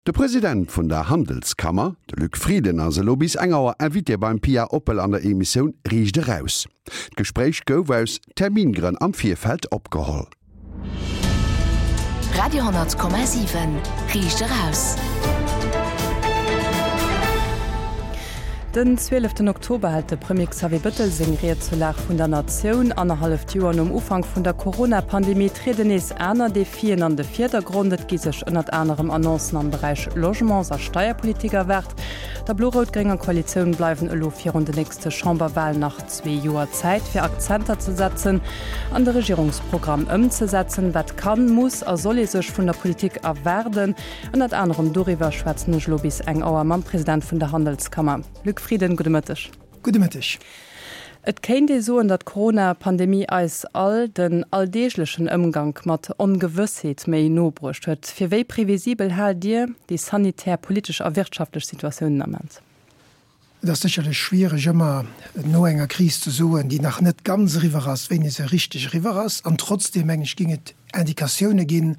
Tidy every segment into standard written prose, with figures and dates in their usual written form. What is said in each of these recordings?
De President vun der Handelskammer, de Luc Frieden, ass elo bis eng Auer Invité beim Pia Oppel an der Emissioun Riicht Eraus. D'Gespréich gouf aus Termingrënn am Virfeld opgeholl. Radio 10,7 Riicht Eraus. Den 12 Oktober hält de Premier Xavier Bëttel seng Ried zur Lag vun der Natioun. Annerhalleft Joer nom Ufank vun der Corona-Pandemie trieden nees aner Defien an de Virdergrond. Et gi sech ënnert anerem Annoncen am Beräich Logements a Steierpolitik erwaart. Der blo-rout-grénger Koalitioun bleiwen elo virun de nächste Chamberwalen nach zwee Joer Zäit, fir Akzenter ze setzen an de Regierungsprogramm ëmzesetzen. Wat kann, muss a soll ee sech vun der Politik erwaarden? Ënnert anerem doriwwer schwätzen ech elo bis eng Auer mam President vun der Handelskammer, Luc Frieden. Gudde Mëtteg. Gudde Mëtteg. Et kéint ee soen, datt d'Corona-Pandemie eis all den alldeeglechen Ëmgank mat Ongewëssheet méi no bruecht huet. Fir wéi previsibel haalt Dir déi sanitär, politesch a wirtschaftlech Situatioun den Ament? Et ass sécherlech schwiereg ëmmer no enger Kris ze soen, déi nach net ganz eriwwer ass, wéini se richteg eriwwer ass. An trotzdeem, mengen ech, géing et Indikatioune ginn,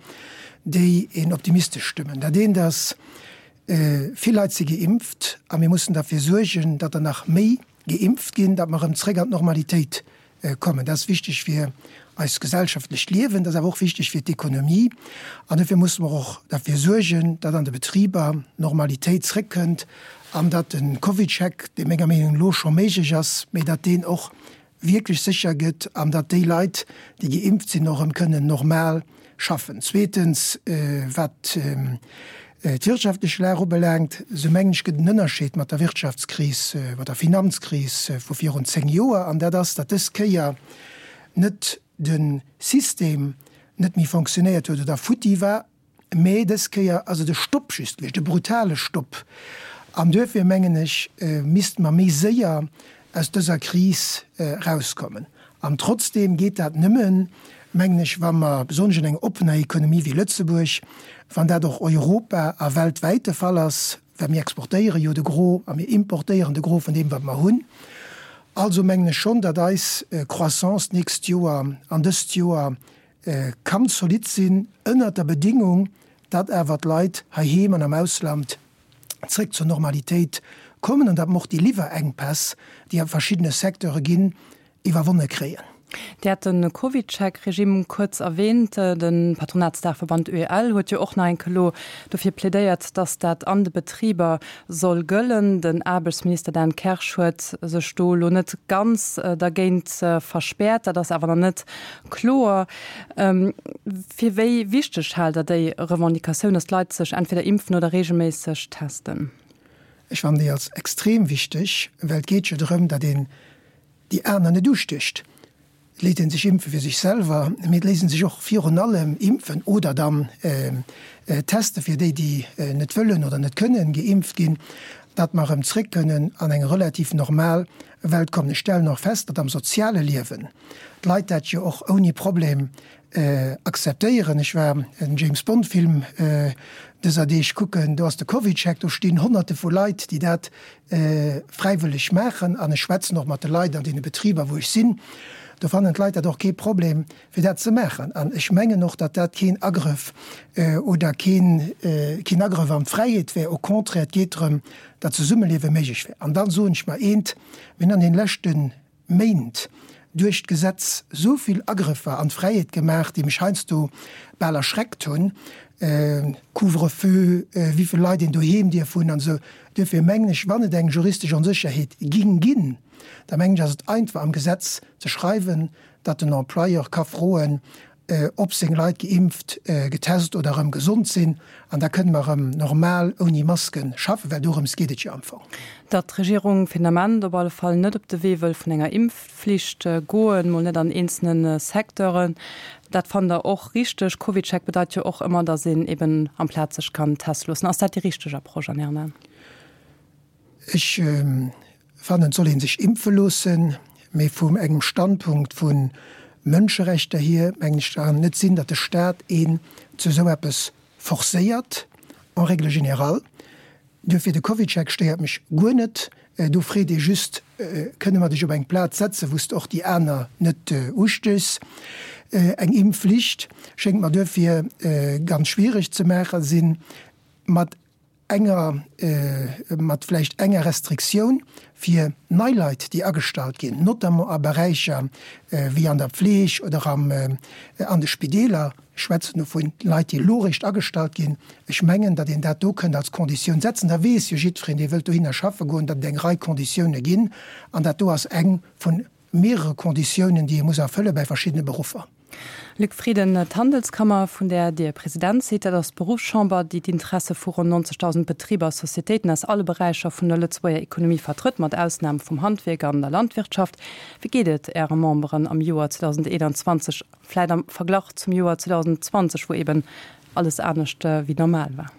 déi een optimistesch stëmmen. Dat eent ass, Vill Leit si geimpft a mir mussen derfir suergen, datt der nach méi geimpft ginn, datt mer erëm zréck an d'Normalitéit kommen. Dat ass wichteg fir eist gesellschaftlecht Liewen, dat ass awer och wichteg fir d'Ekonomie. An dofir musse mer och derfir suergen, datt an de Betriber Normalitéit zréckkënnt an datt de CovidCheck, dee menger Meenung no elo scho méiglech ass, mee datt deen och wierklech sécher gëtt an datt déi Leit, déi geimpft sinn, och erëm kënnen normal schaffen. Zweetens, wat d'wirtschaftlech Lag ubelaangt, esou mengen ech, gëtt en Ënnerscheed mat der Wirtschaftskris, mat der Finanzkris vu virun 10 Joer, an dat ass, datt dës Kéier net de System net méi fonctionnéiert huet oder futti war, Mee dës Kéier ass et e Stopp just gewiescht, e brutale Stopp. An duerfir, mengen ech, misste mer méi séier aus dëser Kris erauskommen. An trotzdeem geet dat nëmmen, mengen ech, wa mer, besonnesch an enger oppener Ekonomie wéi Lëtzebuerg, wann dat och europa a weltwäit de Fall ass, well mir exportéiere jo de Gros a mir importéieren de Gros vun deem, wat mer hunn. Also mengen ech schonn, datt eis Croissance d'nächst Joer an dëst Joer Kann zolidd sinn, ënnert der Bedingung, datt awer d'Leit heiheem an am Ausland zréck zur Normalitéit kommen an datt mer och déi Liwwerenkpäss, déi a verschiddene Secteure ginn, iwwerwonne kréien. Dir hat de CovidCheck-Regime kuerz erwähnt. De Patronatsdaachverband UEL huet jo och nach eng Kéier elo dofir plädéiert, datt dat an de Betriber soll gëllen. Den Aarbechtsminister Dan Kersch huet sech do elo net ganz dergéint verspäert. Dat ass awer nach net Kloer. Fir wéi wichteg haalt Der déi Revendicatioun, datt d'Leit sech entweder impfen oder reegelméisseg testen? Ech fannen déi als extrem wichteg, well et geet jo drëm, datt een déi aner net ustécht. Et léisst ee sech impfe fir sech selwer, mee et léisst ee sech och virun allem impfen oder dann teste fir déi, déi net wëllen oder net kënnen geimpft ginn, datt mer erëm zréck kënnen an eng relativ normal Welt kommen. Ech stellen och fest, datt am soziale Liewen d'Leit dat jo och ouni Problem akzeptéieren. Ech war en James Bond Film dëser Deeg kucken, do ass de CovidCheck, do stinn Honnerte vu Leit, déi dat fräiwëlleg maachen. An ech schwätzen och mat de Leit an deene Betriber, wou ech sinn, do fannen d'Leit dat och kee Problem, fir dat ze maachen. An ech mengen och, datt dat keen Agrëff oder keen Agrëff an d'Fräiheet wär. Au contraire, et geet drëm, datt Zesummeliewe méiglech wär. An dann soen ech mer eent, Mir hunn an deene leschte Méint duerch d'Gesetz esou vill Agrëffer an d'Fräiheet gemaach, déi mech heiansdo bal erschreckt hunn, Couvre-feu, wéi vill Leit een doheem dierf hunn an esou. Duerfir mengen ech, wann et eng juristesch Onsécherheet ging ginn, da mengen ech, ass et einfach am Gesetz ze schreiwen, datt den Employeur ka froen, ob seng Leit geimpft, getest oder erëm gesond sinn, an da kënne mer erëm normal ouni Maske schaffen, well dorëms geet et jo am Fong. Datt d'Regierung fir den Ament op alle Fall net op de Wee wëll vun enger Impfflicht goen, mol net an eenzelne Secteuren, dat fannt Der och richteg? CovidCheck bedeit jo och ëmmer, datt een eben amplaz sech kann teste loossen. Ass dat déi richteg Approche an Ären Aen? Ech fannen, et soll ee sech impfe loossen, mee vum engem Standpunkt vu Mënscherechter hier, mengen ech, kann et net sinn, datt de Staat een zu esou eppes forcéiert, en règle générale. Duerfir, de CovidCheck stéiert mech guer net. Do freet ee just, Kënne mer dech op eng Plaz setzen, wou s de och déi aner net ustéchs? Eng Impfflicht schéngt mer duerfir ganz schwiereg ze maache sinn. Mat. enger, mat vläicht enger Restriktioun fir nei Leit, déi agestallt ginn, notamment a Beräicher wéi an der Pfleg oder am, an de Spideeler. Ech schwätzen do vu Leit, déi elo eréischt agestallt ginn. Ech mengen, datt een dat do kënnt als Konditioun setzen. Da weess jo jiddwereen, dee wëllt dohinner schaffe goen, datt et eng Rei Konditioune ginn. An dat do ass eng vu mehrere Konditiounen, déi ee muss erfëlle bei verschiddene Beruffer. Luc Frieden, D'Handelskammer, vun där Dir President sidd, dat ass d'Beruffschamber, déi d'Interesse vu ronn 90.000 Betriber a Societéiten aus alle Beräicher vun der Lëtzebuerger Ekonomie vertrëtt, mat Ausnam vum Handwierk an der Landwirtschaft. Wéi geet et Äre Memberen am Joer 2021, vläit am Verglach zum Joer 2020, wou eben alles anescht wéi normal war?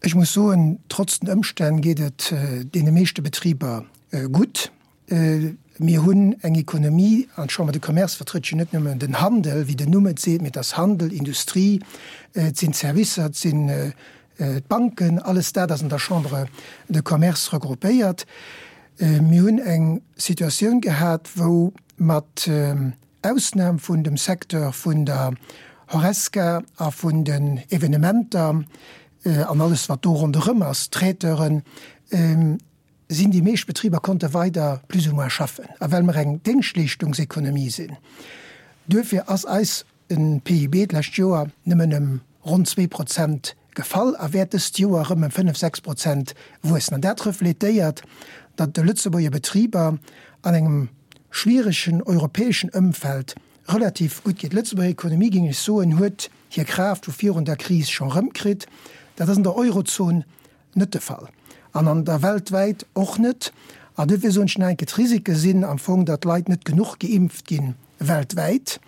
Ech muss soen, trotz den Ëmstänn geet et deene meeschte Betriber gutt. Mir hunn eng Ekonomie, an d'Chambre de Commerce vertrëtt jo net nëmmen den Handel, wéi den Numm et seet, mee et ass Handel, Industrie, et sinn d'Servicer, et sinn d'Banken, alles dat ass an der Chambre de Commerce regroupéiert. Mir hunn eng Situatioun gehat, wou mat Ausnam vun dem Secteur vun der Horesca a vun den Evenementer an alles wat do ronderëm ass, Traiteuren, sinn déi meescht Betriber konnte weider plus ou moins schaffen. A well mer eng Déngschtleeschtungsekonomie sinn, duerfir ass eis PIB d'lescht Joer nëmmen ëm ronn 2% gefall a wäert dëst Joer erëm ëm 5, 6% wuessen. An dat refletéiert, datt de Lëtzebuerger Betriber an engem schwieregen europäeschen Ëmfeld relativ gutt geet. D'Lëtzebuerger Ekonomie, géing ech soen, huet hir Kraaft vu virun der Kris scho rëmkritt. Dat ass an der Eurozon net de Fall an an der weltwäit och net. An duerfir soen ech nach eng Kéier, d'Risike sinn am Fong, datt d'Leit net genuch geimpft gi weltwäit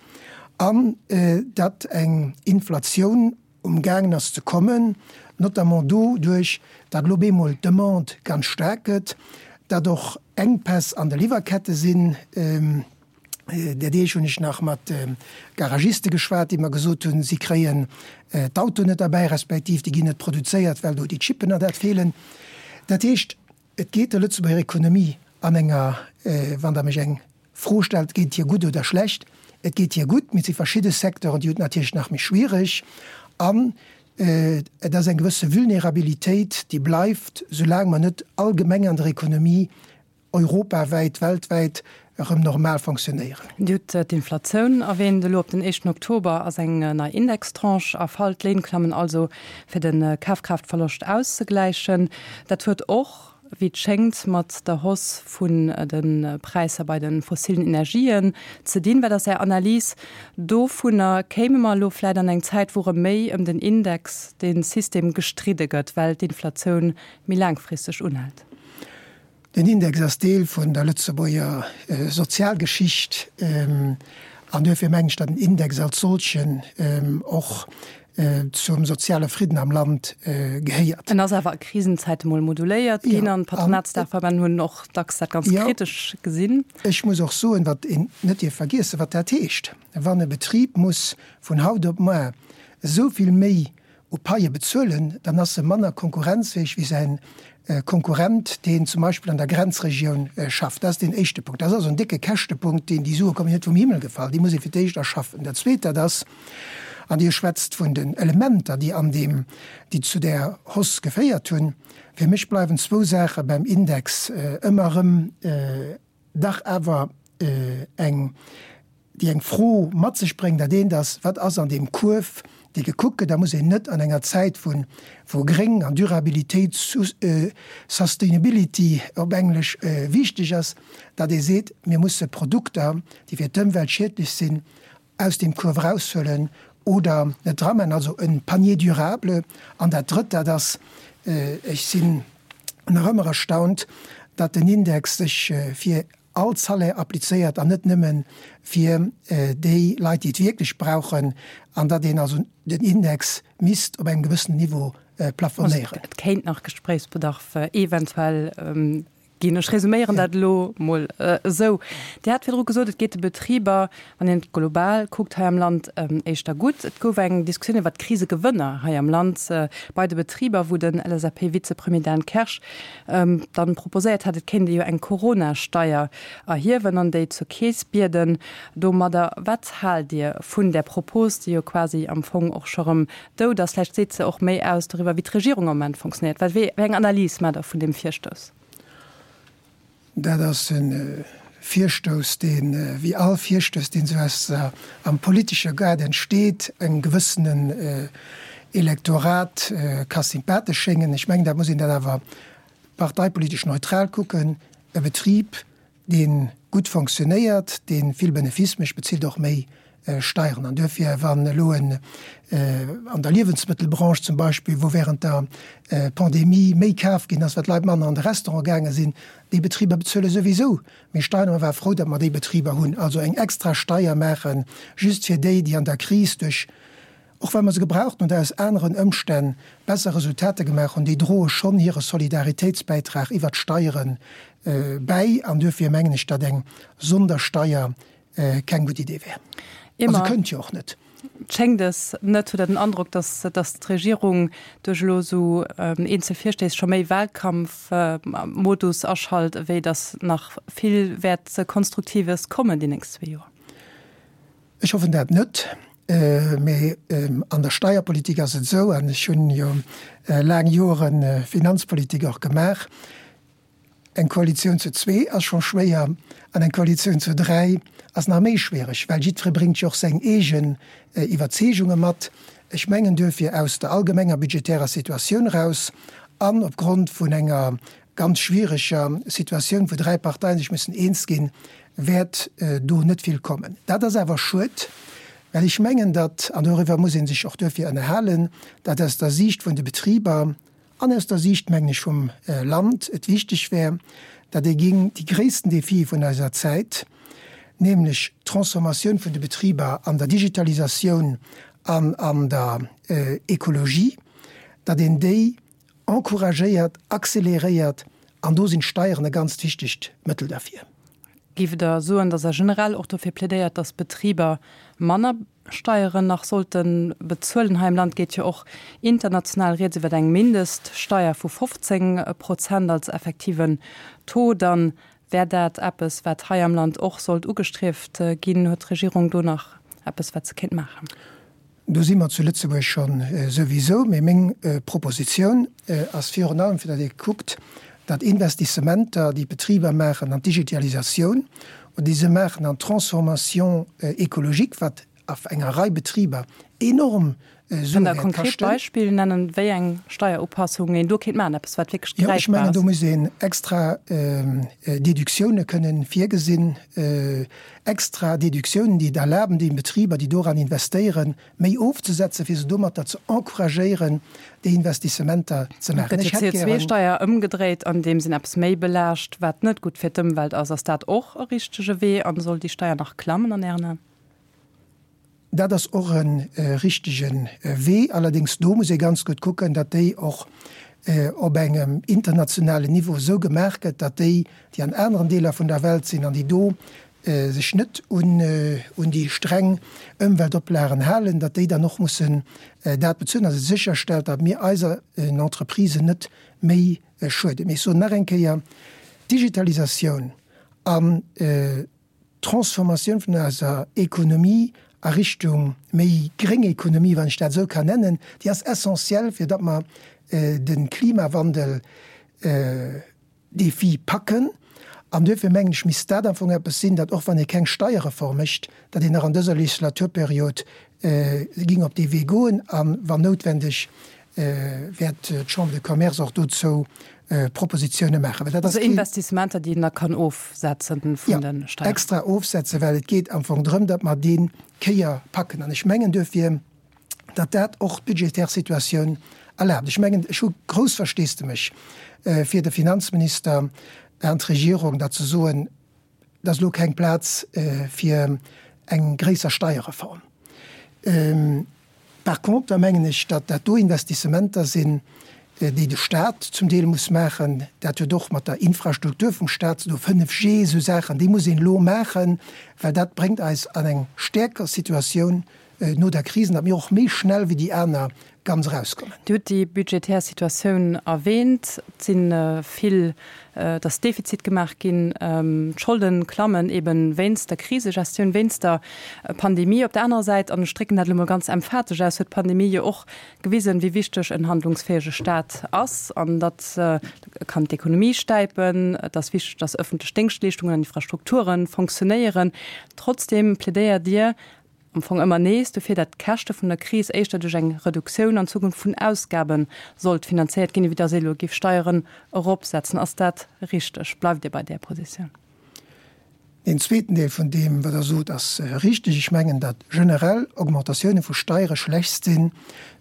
an datt eng Inflatioun um gaangen ass ze kommen, notamment doduerch, datt elo op eemol d'Demande ganz staark gëtt, datt och Enkpäss an de Liwwerkette sinn. Där Deeg hunn ech nach mat Garagiste geschwat, déi mer gesot hunn, si kréien d'Autoen net erbäi, respektiv déi ginn net produzéiert, well do déi Chippen an dat feelen. Dat heescht, et geet der Lëtzebuerger Ekonomie an enger, wann Der mech eng Fro stellt, geet et hir gutt oder schlecht, et geet hir gutt, mee et si verschidde Secteuren, déi hunn et natierlech nach méi schwiereg. An et ass eng gewësse Vulnerabilitéit, déi bleift, soulaang mer net allgemeng an der Ekonomie europawäit, weltwäit erëm normal fonctionnéieren. Dir hutt d'Inflatioun erwähnt. Elo op den éischten Oktober ass eng nei Indextranche erfall. D'Léin klammen also, fir de Kafkraaftverloscht auszegläichen. Dat huet och, wéi et schéngt, mat der Hausse vun de Präisser bei de fossilen Energien ze dinn. Wat ass Är Analys dovunner? Kéime mer elo vläicht an eng Zäit, wou erëm méi ëm den Index, de System gestridde gëtt, well d'Inflatioun méi laangfristeg unhält? Den Index ass Deel vun der Lëtzebuerger Sozialgeschicht an duerfir mengen ech, datt den Index als solchen och zum soziale Fridden am Land gehéiert. En ass awer a Krisenzäite mol moduléiert ginn an d'Patronatsdaachverbänn hunn och dacks dat ganz kritesch gesinn. Ech muss och soen, wat een net dierf vergiessen, wat dat heescht, wann e Betrib muss vun haut op muar esou vill méi u Paie bezuelen, dann ass e manner konkurrenzfäeg wéi säin Konkurrent, deen zum Beispill an der Grenzregioun schafft. Dat ass deen éischte Punkt. Dat ass also en décke Käschtepunkt, deen, déi Sue kommen jo net vum Himmel gefall, déi muss ee fir d'éischt erschaffen. Dat Zweet, dat ass, an Dir schwätzt vun den Elementer, déi an deem, déi zu där Hausse geféiert hunn, fir mech bleiwen zwou Saache beim Index ëmmer erëm, dach awer eng, déi eng Fro mat sech bréngt, dat eent ass, Wat ass an deem Kuerf, dee gekuckt gëtt? Da muss een net an enger Zäit vu wou Gréng an Durabilitéit, Sustainability op Englesch, wichteg ass, datt ee seet, mir musse Produkter, déi fir d'Ëmwelt schiedlech sinn, aus deem Kuerf eraushuelen oder net dramaachen, also e Panier durable. An dat Drëtt, dat ass, ech sinn nach ëmmer erstaunt, datt den Index sech fir all Salaire applizéiert an net nëmme fir déi Leit, déi et wierklech brauchen, an datt een also den Index misst op engem gewëssenen Niveau plafonéieren. Et kéint nach Gespréichsbedarf eventuell. Ginn. Ech resuméieren dat elo mol esou. Dir hat virdru gesot, et geet de Betriber, wann een et global kuckt, hei am Land éischter gutt. Et gouf eng Diskussioun iwwert d'Krisegewënner hei am Land bei de Betriber, wou den LSAP-Vizepremier Dan Kersch dann proposéiert hat, et kéint ee jo eng Corona-Steier erhiewen an déi zur Keess bieden domadder. Wat haalt Dir vun där Propos, déi jo quasi am Fong och scho rëm dout ass? Vläicht seet se och méi aus doriwwer, wéi d'Regierung am Moment fonctionnéiert. Wat, wéi eng Analys maacht Der vun deem Virstouss? Dat ass e Virstouss, deen, wéi all Virstouss, deen esou aus der, am politesche Gaart entsteet, engem gewëssenen Elektorat ka sympathesch schéngen. Ech mengen, dat muss een dat awer parteipolitesch neutral kucken. E Betrib, dee gutt fonctionnéiert, dee vill Benefice mécht, bezilt och méi Steieren. An duerfir, wann elo en an der Liewensmëttelbranche zum Beispill, wou während der Pandemie méi kaf ginn ass, well d'Leit manner an de Restaurant gaange sinn, déi Betriber bezuele souwisou méi Steieren. A mer ware frou, datt mer déi Betriber hunn. Also eng extra Steier maachen, just fir déi, déi an der Kris duerch och well mer se gebraucht hunn oder aus aneren Ëmstänn besser Resultater gemaach hunn, déi droe schonn hire Solidaritéitsbäitrag iwwert d'Steiere bäi. An duerfir mengen ech, datt eng Sondersteier keng gutt Idee wär. A se kënnt jo och net. Schéngt es net? Hutt Der den Androck, datt d'Regierung duerch elo esou eenzel Virstéiss scho méi Wahlkampfmodus aschalt, ewéi datt nach vill wäert Konstruktives kommen déi nächst zwee Joer? Ech hoffen dat net, mee an der Steierpolitik ass et esou, an ech hunn jo laang Jore Finanzpolitik och gemaach, eng Koalitioun zu zwee ass scho schwéier an eng Koalitioun zu dräi ass nach méi schwiereg, well jiddweree bréngt jo och seng eegen Iwwerzeegunge mat. Ech mengen duerfir aus der allgemenger budgetärer Situatioun eraus an opgrond vun enger ganz schwiereger Situatioun, wou dräi Parteien sech mussen eens ginn, wäert do net vill kommen. Dat ass awer schued, well ech mengen, datt, an doriwwer muss ee sech och duerfir ënnerhalen, datt aus der Siicht vun de Betriber an aus der Siicht, mengen ech, vum Land et wichteg wär, datt ee géing déi gréissten Defie vun eiser Zäit, nämlech d'Transformatioun vun de Betriber an der Digitalisatioun an an der Ekologie, datt een déi encouragéiert, accéléréiert, an do sinn d'Steieren e ganzt wichtegt Mëttel derfir. Géift Der soen, datt Der generell och dofir plädéiert, datt d'Betriber manner Steieren nach sollte bezuelen? Hei am Land geet jo och international rieds iwwer eng Mindeststeier vu 15 Prozent als effektiven Taux. Dann wär dat eppes, wat hei am Land och sollt ugestrieft ginn. Huet d'Regierung do nach eppes, wat se kéint maachen? Do si mer zu Lëtzebuerg scho souwisou. Mee meng Propositioun ass virun allem, fir datt ee kuckt, datt Investissementer, déi d'Betriber maachen an d'Digitalisatioun oder déi se maachen an d'Transformation écologique, wat a enger Rei Betriber enorm Sue wäert kaschten. Kënnt Der konkret Beispill nennen, wéi eng Steierupassung een do kéint maachen, eppes wat wierklech gräifbar ass? Jo, ech mengen, do muss een extra Deductioune kënnen virgesinn. Extra Deductiounen, déi et erlaben, deene Betriber, déi doran investéieren, méi ofzesetzen, fir se domatter ze encouragéieren, déi Investissementer ze maachen. Gëtt jo d'CO2-Steier ëmgedréit, andeems een eppes méi belaascht, wat net gutt fir d'Ëmwelt ass. Ass dat och e richtege Wee an soll déi Steier nach klammen an Ären Aen? Dat ass och e richtege Wee. Allerdéngs do muss ee ganz gutt kucken, datt déi och op engem internationalen Niveau esou gemaach gëtt, datt déi, déi an aneren Deeler vun der Welt sinn an déi do sech net un déi streng Ëmweltoplagen halen, datt déi dann och mussen dat bezuelen, datt et sécherstellt, datt mir eiser Entreprisen net méi schueden. Mee ech soen nach eng Kéier, D'Digitalisatioun an d'Transformatioun vun eiser Ekonomie a Richtung méi gréng Ekonomie, wann ech dat esou kann nennen, déi ass essentiell, fir datt mer de Klimawandel Defi packen. An duerfir mengen ech, misst dat am Fong eppes sinn, dat och wann ee keng Steierreform mécht, datt een nach an dëser Legislaturperiod ging op dee Wee goen a wann noutwendeg wäert d'Chambre de Commerce och dozou Propositione maachen. Well dat ass Also Investissementer, déi een da kann ofsetzen vun de Steieren. Jo, extra ofsetzen, well et geet am Fong drëm, datt mer dee Kéier packen. An ech mengen duerfir, datt dat och d'budgetär Situatioun erlaabt. Ech mengen, ech hu grouss Versteesdemech fir de Finanzminister an d'Regierung, datt se soen, Et ass elo keng Plaz fir eng gréisser Steierreform. Par contre mengen ech, datt dat do Investissementer sinn. déi de Stat zum Deel muss maachen. Dat huet och mat der Infrastruktur vum Stat ze doen, 5G, esou Saachen, déi muss een elo maachen, well dat bréngt eis an eng stäerker Situatioun no der Kris an datt mir och méi schnell wéi déi aner ganz erauskommen. Dir hutt déi budgetär Situatioun erwähnt. Et si vill, et ass Defizit gemaach ginn, d'Scholde klammen eben wéinst der Krisegestioun, wéinst der Pandemie. Op der anerer Säit, an ech drécken dat elo mol ganz emphatesch aus, huet d'Pandemie jo och gewisen, wéi wichteg en handlungsfäege Staat ass an datt e kann d'Ekonomie stäipen. Et ass wichteg, datt ëffentlech Déngschtleeschtungen an Infrastrukture fonctionnéieren. Trotzdeem plädéiert Dir am Fong ëmmer nees dofir, datt d'Käschte vun der Kris éischter duerch eng Reduktioun an Zukunft vun Ausgabe sollt finanzéiert ginn, ewéi datt ee elo géif Steieren eropsetzen. Ass dat richteg? Bleift Dir bei där Positioun? Deen zweeten Deel vun deem, wat Der sot, ass richteg. Ech mengen, datt generell Augmentatioune vu Steiere schlecht si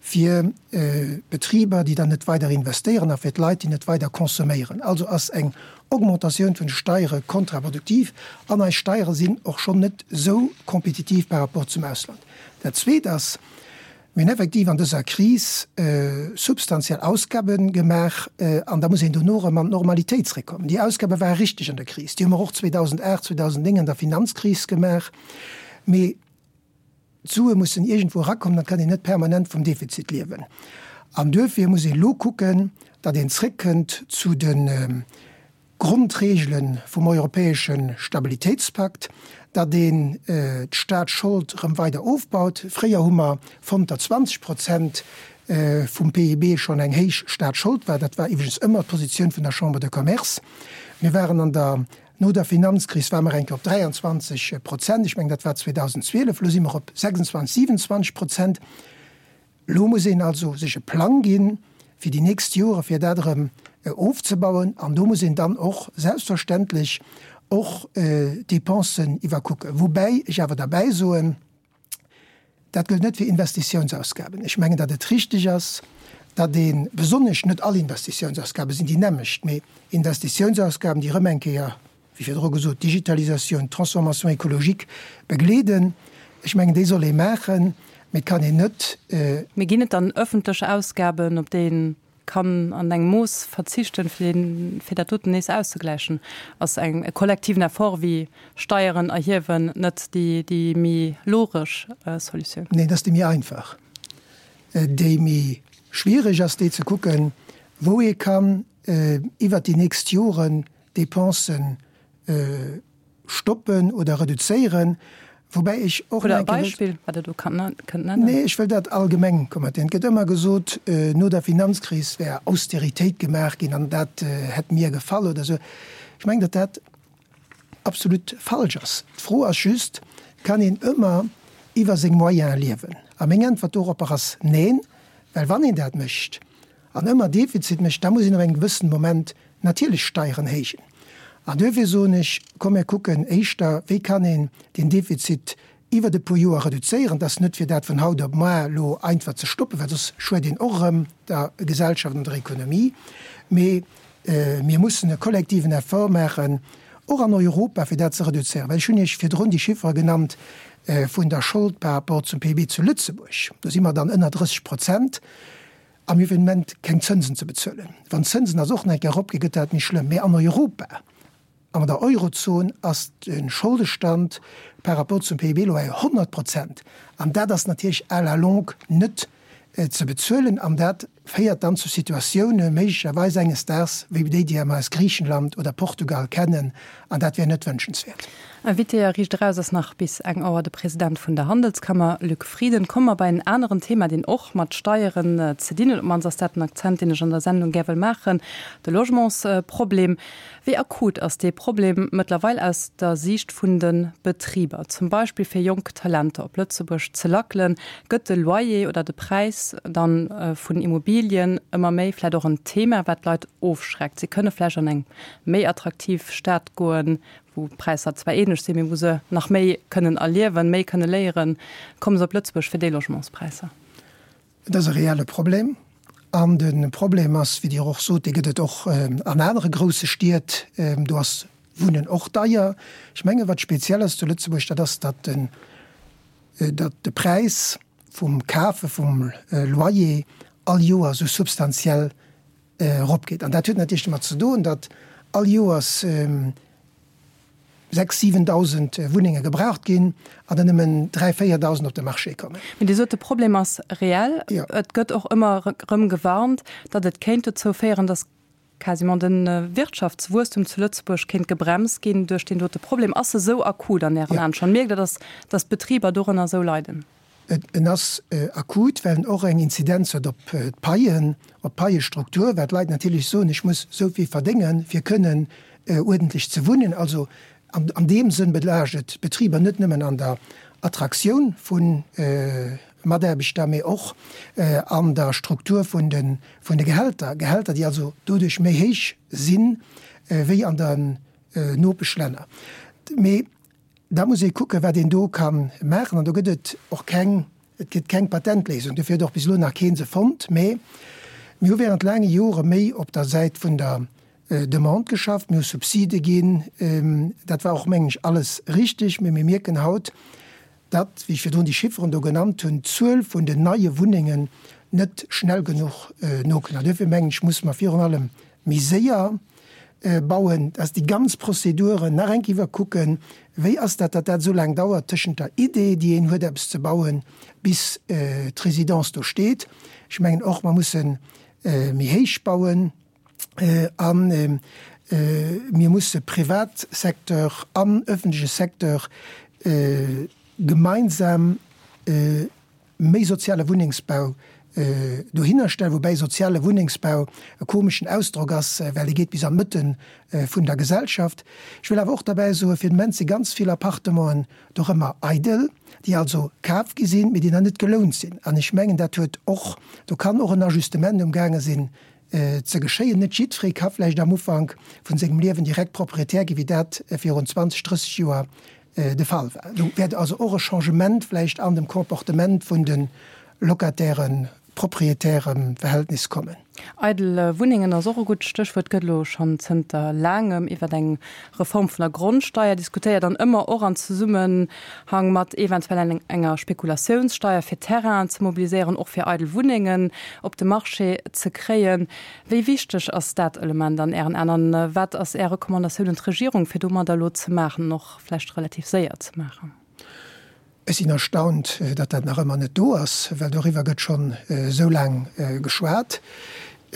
fir d'Betriber, déi dann net weider investéieren, a fir d'Leit, déi net weider consomméieren. Also ass eng Augmentatioun vun de Steiere kontraproduktiv. An eis Steiere sinn och schonn net esou kompetitiv par rapport zum Ausland. Dat Zweet ass, Mir hunn effektiv an dëser Kris substantiell Ausgabe gemaach an da muss een dono erëm an d'Normalitéit zréckkommen. Déi Ausgabe ware richteg an der Kris, déi hu mer och 2008, 2009 an der Finanzkris gemaach, mee d'Sue mussen iergendwou erakommen, et kann een net permanent vum Defizit liewen. An duerfir muss een elo kucken, datt een zréckkënnt zu de Grondreegele vum europäesche Stabilitéitspakt, datt een d'Staatsschold erëm weider ofbaut. Fréier hu mer fonnt, datt 20 Prozent vum PIB schonn eng héich Staatsschold war. Dat war iwwregens ëmmer d'Positioun vun der Chambre de Commerce. Mir waren an der, no der Finanzkris ware mer eng Kéier op 23 Prozent, ech mengen dat war 2012, elo si mer op 26, 27 Prozent. Elo muss een also sech e Plang ginn fir déi nächst Jore fir dat erëm ofzebauen an do muss een dann och selbstverständlech och d'Dépensen iwwerkucken. Woubäi ech awer derbäi soen, dat gëllt net fir Investitiounsausgaben. Ech mengen, datt et richtig ass, datt ee besonnesch, net all Investitiounsausgabe sinn déi nämmlecht, mee Investitiounsausgaben, déi erëm eng Kéier wéi virdru gesot, d'Digitalisatioun, d'Transformation écologique begleeden. Ech mengen, déi soll ee maachen, mee et kann een net. Mee ginn et dann öffentlech Ausgaben, op déi ee kann an engem Mooss verzichten, fir dat doten nees auszegläichen? Ass eng e kollektiven Effort wéi Steieren erhiewen net déi méi logesch Solutioun? Neen, dat ass déi méi einfach. Déi méi schwiereg ass déi ze kucken, wou ee kann iwwert déi nächst Joren Dépensen stoppen oder reduzéieren, woubäi ech och Hutt Der e Beispill, wat Der do kënnt nennen? Nee, ech wëll dat allgemeng kommentéieren. Et gëtt ëmmer gesot, no der Finanzkris wär Austeritéit gemaach ginn an dat hätt mir gefall oder esou. Ech mengen, datt dat absolut falsch ass. D'Fro ass just, Kann een ëmmer iwwer seng Moyene liewen? A meng Äntwert doropper ass Neen, well wann een dat mécht, an ëmmer Defizit mécht, da muss een op engem gewëssenen Moment natierlech Steieren héijen. An duerfir soen ech, komm mir kucken éischter, wéi kann een deen Defizit iwwert e puer Joer reduzéieren. Et ass net fir dat vun haut op moar elo einfach ze stoppen, well soss schued een och erëm der Gesellschaft an der Ekonomie. Mee mir mussen e kollektiven Effort maachen, och an Europa, fir dat ze reduzéieren. Well ech hunn Iech virdrun déi Chiffere genannt vun der Schold par rapport zum PIB zu Lëtzebuerg. Do si mer dann ënner 30 Prozent. A mir hunn fir den Moment keng Zënsen ze bezuelen. Wann d'Zënsen also och nach eng Kéier eropginn, gëtt dat méi schlëmm. Mee an Europa, an der Eurozon ass de Scholdestand par rapport zum PIB elo bei 100 Prozent. An dat ass natierlech à la longue net ze bezuelen. An dat féiert dann zu Situatioune méiglecherweis enges Daags wéi déi, déi mer aus Griichenland oder Portugal kennen. An dat wär net wënschenswäert. Invité a Riicht Eraus ass nach bis eng Auer de President vun der Handelskammer, Luc Frieden. Komme mer bei en aneren Thema, deen och mat Steieren ze dinn huet. Op d'mannst ass dat den Akzent, deen ech an der Sendung gär wëll maachen, de Logementsproblem. Wéi akut ass dee Problem mëttlerweil aus der Siicht vun de Betriber? Zum Beispill fir jonk Talenter op Lëtzebuerg ze lackelen, gëtt de Loyer oder de Präis dann vun Immobilien ëmmer méi vläicht och en Thema, wat d'Leit ofschreckt. Si kënne vläicht an eng méi attraktiv Stad goen, wou d'Präisser zwar ähnlech sinn, mee wou se nach méi kënnen erliewen, méi kënne léieren, komme se op Lëtzebuerg fir déi Logementspräisser. Et ass e reelle Problem. An de Problem ass, wéi Dir och sot, dee gëtt et och an anere grousse Stied, do ass Wunnen och deier. Ech menge wat speziell ass zu Lëtzebuerg, dat ass, datt den, datt de Präis vum Kafe vum Loyer all Joer esou substantiell. eropgeet. An dat huet natierlech domat ze doen, datt all Joers 6, 7.000 Wunnenge gebraucht ginn an der nëmmen 3, 4.000 op de Marché kommen. Mee Dir sot, de Problem ass reell. Et gëtt och ëmmer erëm gewarnt, datt et kéint dozou féieren, datt quasiment de Wirtschaftswuesstum zu Lëtzebuerg kéint gebremst ginn duerch deen dote Problem. Ass e sou akut an Ären Aen schonn? Mierkt Der, datt datt d'Betriber dorënner esou leiden? En ass akut, well en och eng Inzidenz huet op d'Paien, op d'Paiestruktur, well d'Leit natierlech soen, ech muss esou vill verdéngen, fir kënnen uerdentlech ze wunnen. Also an deem Sënn belaascht et d'Betriber net nëmmen an der Attraktioun vu Mataarbechter, mee och an der Struktur vun de Gehälter, Gehälter, déi also doduerch méi héich si wéi an den Nopeschlänner. Mee Da muss ee kucken, wat een do ka maachen. An do gëtt et och keng, et gëtt keng Patentléisung. Dofir huet och bis elo nach kee se fonnt. Mä mir hu während laange Jore méi op der Säit vun der Demande geschafft. Mir hu Subside ginn. Dat war och, mengen ech, alles richtig. Mä mir mierken haut, datt, wéi ech virdrun déi Chifferen do genannt hunn, d'Zuel vun den neie Wunnengen net schnell genuch nokënnt. An duerfir, mengen ech, musse mer virun allem méi séier bauen, dass déi ganz Prozeduren nach eng Kéier iwwerkucken, wéi ass dat, datt dat esou laang dauert tëschent der Idee, déi een huet eppes ze bauen, bis d'Résidence do steet. Ech mengen och, mer musse méi héich bauen a mir musse Privatsecteur an öffentleche Secteur gemeinsam méi soziale Wunnengsbau dohinner stellen, woubäi soziale Wunnengsbau e komeschen Ausdrock ass, well dee geet bis an d'Mëtte vun der Gesellschaft. Ech wëll awer och derbäi soen, fir den Moment si ganz vill Appartementen doch ëmmer eidel, déi also kaf gi sinn, mee déi nach net gelount sinn. An ech mengen, dat huet och, do kann och en Ajustement umgaange sinn ze geschéien. Net jiddweree ka vläicht am Ufank vun sengem Liewen direkt Proprietär ginn, wéi dat virun 20, 30 Joer de Fall war. Do wäert also och e Changement vläicht an dem Comportement vun de Locatairen, Proprietäre-Verhältnis kommen. Eidel Wunnengen ass och e gutt Stéchwuert. Et gëtt elo schonn zënter laangem iwwer eng Reform vun der Grondsteier diskutéiert an ëmmer och an Zesummenhang mat eventuell enger Spekulatiounssteier, fir Terrainen ze mobiliséieren, och fir eidel Wunnengen op de Marché ze kréien. Wéi wichteg ass dat Element an Ären Aen an wat ass Är Recommandatioun un d'Regierung, fir domadder elo ze maachen an och vläicht relativ séier ze maachen? Ech sinn erstaunt, datt dat nach ëmmer net do ass, well doriwwer gëtt schonn esou laang geschwat.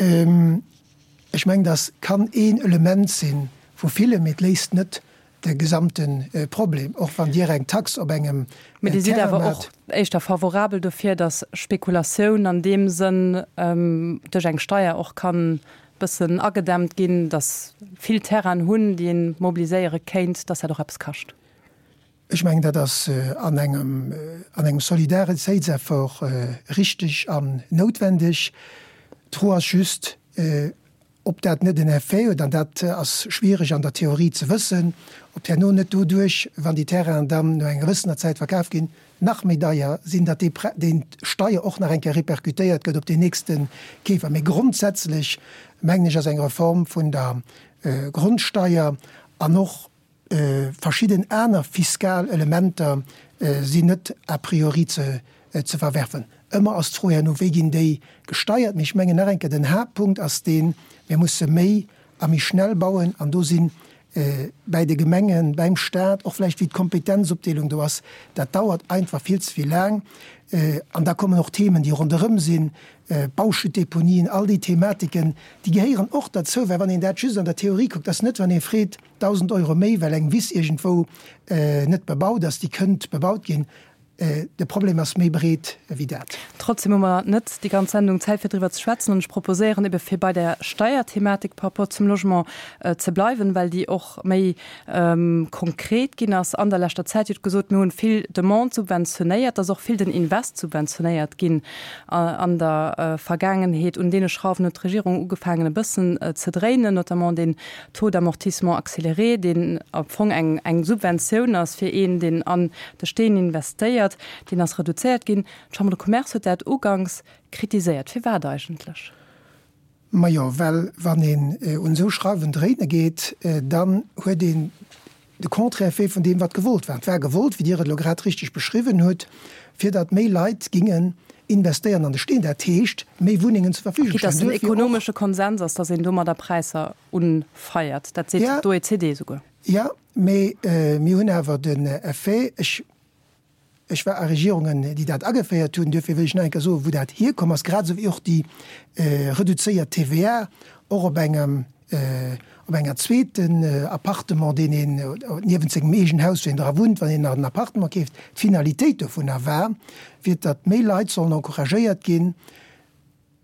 Ech mengen, dat kann een Element si vu villen, mee et léist net de gesamte Problem, och wann Dir eng Tax op engem Mee Dir sidd awer och éischter favorabel dofir, datt Spekulatioun an deem Sënn duerch eng Steier och kann bëssen agedämmt ginn, datt vill Terrainen hunn, déi ee mobiliséiere kéint, datt dat och eppes kascht? Ech mengen, dat ass an engem, an engem Solidaritéitseffort richteg an noutwendeg. D'Fro ass just, Ob dat net en Effet huet, an dat ass schwiereg an der Theorie ze wëssen, ob herno net doduerch, wann déi Terrainen dann no enger gewëssener Zäit verkaf ginn, nach méi deier sinn, datt déi déi Steier och nach eng Kéier répercutéiert gëtt op deen nächste Keefer. Mee grondsätzlech, mengen ech, ass eng Reform vun der Grondsteier an och Verschidden aner fiskal Elementer sinn net a priori ze verwerfen. Ëmmer ass d'Fro herno, wéi ginn déi gesteiert. Mee ech mengen nach eng Kéier, den Haaptpunkt ass deen, mir musse méi a méi schnell bauen. An do si bäi de Gemengen, bäim Stat, och vläicht wéi d'Kompetenzopdeelung do ass, dat dauert einfach vill ze vill laang. An da kommen och Themen, déi ronderëm sinn, Bauschuttdeponien, all déi Thematiken, déi gehéieren och derzou. Well wann een dat just an der Theorie kuckt, ass net, wann ee freet, 1.000 Euro méi, well eng Wiss iergendwou net bebaut ass, déi kënnt bebaut ginn. De Problem ass méi breet wéi dat. Trotzdem hu mer net déi ganz Sendung Zäit fir driwwer ze schwätzen an ech proposéieren ebe fir bei der Steierthematik par rapport zum Logement ze bleiwen, well déi och méi konkret ginn ass an der leschter Zäit. Dir hutt gesot, mir hunn vill Demande subventionéiert, et ass och vill den Invest subventionéiert ginn an der Vergaangenheet. Un deene Schrauwen huet d'Regierung ugefaangen e bëssen ze dréinen, notamment deen Taux d'amortissement accéléré, deen am Fong eng eng Subventioun ass fir een, deen an de Steen investéiert, deen ass reduzéiert ginn. D'Chambre de Commerce huet dat uganks kritiséiert. Firwat eigentlech? Majo, well wann een un esou Schrauwen dréine geet, dann huet een de Contraire fait vun deem, wat gewollt war. Et war gewollt, wéi Dir et elo grad richteg beschriwwen hutt, fir datt méi Leit gingen. Investéieren an de Steen, dat heescht méi Wunnengen zur Verfügung stellen. Quitte dass den ekonomesche Konsens ass, dass een domadder Präisser unfeiert. Dat seet d'OECD esouguer. Jo, mee mir hunn awer den Effet, ech Ech war a Regierungen, déi dat ageféiert hunn. Duerfir wëll ech nach eng Kéier soen, wou dat hierkomm ass, grad esou wéi och déi reduzéiert TVA och op engem, op enger zweeten Appartement, deen een niewent sengem eegenen Haus, wou een dra wunnt, wann een nach en Appartement keeft. D'Finalitéit dovunner war, fir datt méi Leit sollen encouragéiert ginn,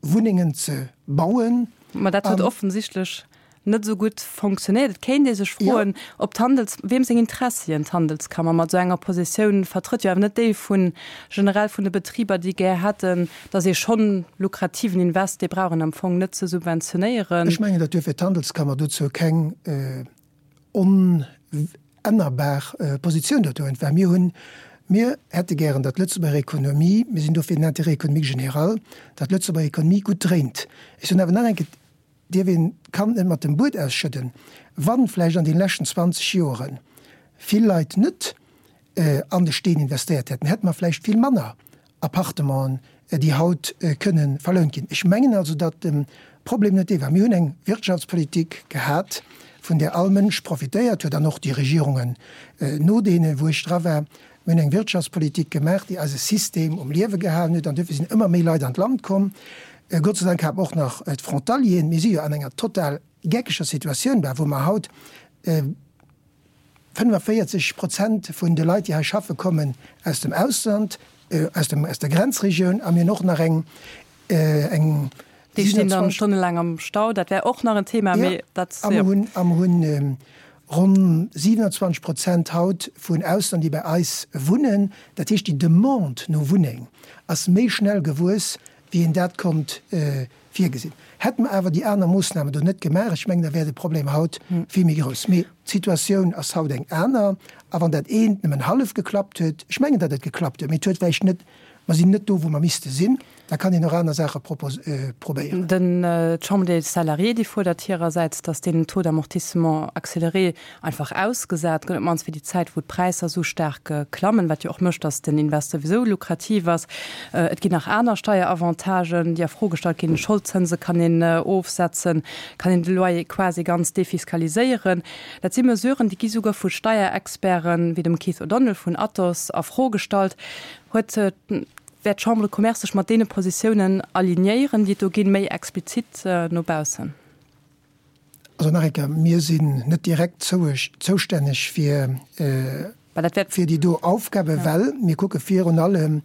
Wunnengen ze bauen. Ma dat huet offensichtlech net esou gutt fonctionnéiert. Et kéint ee sech froen, ob d'Handels, weem seng Interessien d'Handelskammer mat esou enger Positioun vertrëtt. Jo awer net déi vu generell vun de Betriber, déi gär hätten, datt ee schonn lukrativen Invest, dee brauch een am Fong net ze subventionéieren. Ech mengen, datt duerfir d'Handelskammer dozou keng onännerbar Positioun dozou huet, well mir hunn, mir hätte gären, datt d'Lëtzebuerger Ekonomie, mir sinn do fir den Intérêt économique général, datt d'Lëtzebuerger Ekonomie gutt dréint. Ech soen awer nach eng Kéier, dierf een d'Kand net mat dem Bued ausschëdden, wa vläicht an deene leschten 20 Joere vill Leit net an de Steen investéiert hätten, hätte mer vläicht vill manner Appartementen, déi haut kënne verlount ginn. Ech mengen also, datt de Problem net dee war. Mir hunn eng Wirtschaftspolitik gehat, vun där all Mënsch profitéiert huet, an och déi Regierungen no deenen, wou ech dra war. Mir hunn eng Wirtschaftspolitik gemaach, déi eise System um Liewe gehalen huet, an duerfir sinn ëmmer méi Leit an d'Land komm. Gott sei Dank hat mer och nach d'Frontalieren. Mir si jo an enger total geckeger Situatioun, wou mer haut, 45 Prozent vun de Leit, déi hei schaffe kommen aus dem Ausland, aus dem, aus der Grenzregioun a mir hunn och nach eng, eng. Déi stinn dann stonnelaang am Stau, dat wär och nach en Thema, mee dat. A mer hunn, a mer hunn ronn 27 Prozent haut vun Ausland, déi bei eis wunnen. Dat heescht, déi Demande no Wunneng ass méi schnell gewuess, wéi een dat konnt virgesinn. Hätte mer awer déi aner Moossnamen do net gemaach, ech mengen, da wär de Problem haut vill méi grouss. Mee d'Situatioun ass haut eng aner. A wann dat eent nëmmen hallef geklappt huet, ech mengen, datt et geklappt huet, mee et huet vläicht net, mer sinn net do, wou mer misste sinn, da kann een och aner Saache probéieren. Den, d'Chambre des Salariés, déi fuerdert hirersäits, datt deen Taux d'amortissement accéléré einfach ausgesat gëtt, op d'mannst fir déi Zäit, wou d'Präisser esou staark klammen, wat jo och mécht, datt den Invest souwisou lukrativ ass. Et ginn nach aner Steieravantagen, déi a Fro gestallt ginn. Scholdzënse kann een ofsetzen, kann een de Loyer quasi ganz defiskaliséieren. Dat si Mesuren, déi gi souguer vu Steierexperten, wéi dem Keith O'Donnell vun Atos, a Fro gestallt. Huet, wäert d'Chambre de Commerce sech mat deene Positiounen alignéieren, déi et do ginn, méi explizit no baussen? Also nach eng Kéier, mir sinn net direkt zoustänneg fir déi do Aufgaben, well mir kucke virun allem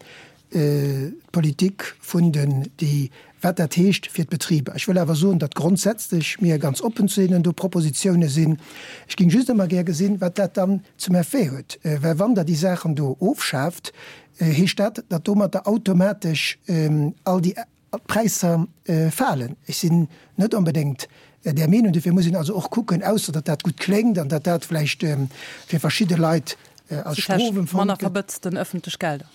d'Politik vun den, déi, wat dat heescht fir d'Betriber. Ech wëll awer soen, datt grondsätzlech mir ganz oppen zu deenen do Propositione sinn. Ech géing just ëmmer gär gesinn, wat dat dann zum Effet huet, well wann Der déi Saachen do ofschaaft, heescht dat, datt domatter automatesch all déi D'Präisser falen. Ech sinn net onbedéngt där Meenung. Dofir muss een also och kucken, ausser datt dat gutt kléngt an datt dat vläicht fir verschidde Leit als Strof empfonnt gëtt. Manner verbëtzten ëffentlech Gelder.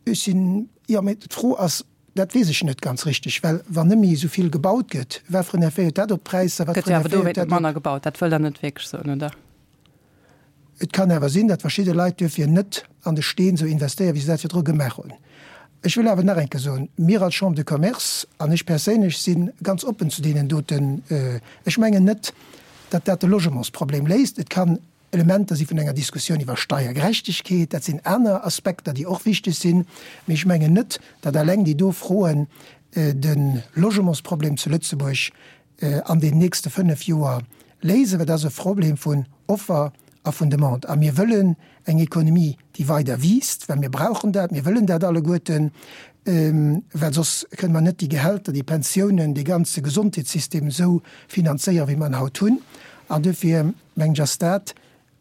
Ech sinn, jo, mee d'Fro ass, dat weess ech net ganz richteg, well wann net méi esou vill gebaut gëtt, wat fir en Effet huet dat op d'Präisser, wat fir en Effet huet dat op. Gëtt jo awer dowéint net manner gebaut. Dat wëllt Der net wierklech soen, oder? Et kann awer sinn, datt verschidde Leit duerfir net an de Steen esou investéieren, wéi se dat virdru gemaach hunn. Ech wëll awer nach eng Kéier soen, Mir als Chambre de Commerce an ech perséinlech si ganz oppen zu deenen doten. Ech mengen net, datt dat de Logementsproblem léist. Et kann Elementer si vun enger Diskussioun iwwer Steiergerechtegkeet, dat sinn aner Aspekter, déi och wichteg sinn. Mee ech mengen net, datt alleng déi do Froen de Logementsproblem zu Lëtzebuerg an den nächste 5 Joer léisen, well dat ass e Problem vun Offer a vun Demande. A mir wëllen eng Ekonomie, déi weider wiisst, well mir brauchen dat, mir wëllen dat alleguerten, well soss kënne mer net déi Gehälter, déi Pensiounen, dee ganze Gesondheetssystem esou finanzéieren, wéi mer en haut hunn. An duerfir mengen ech, ass dat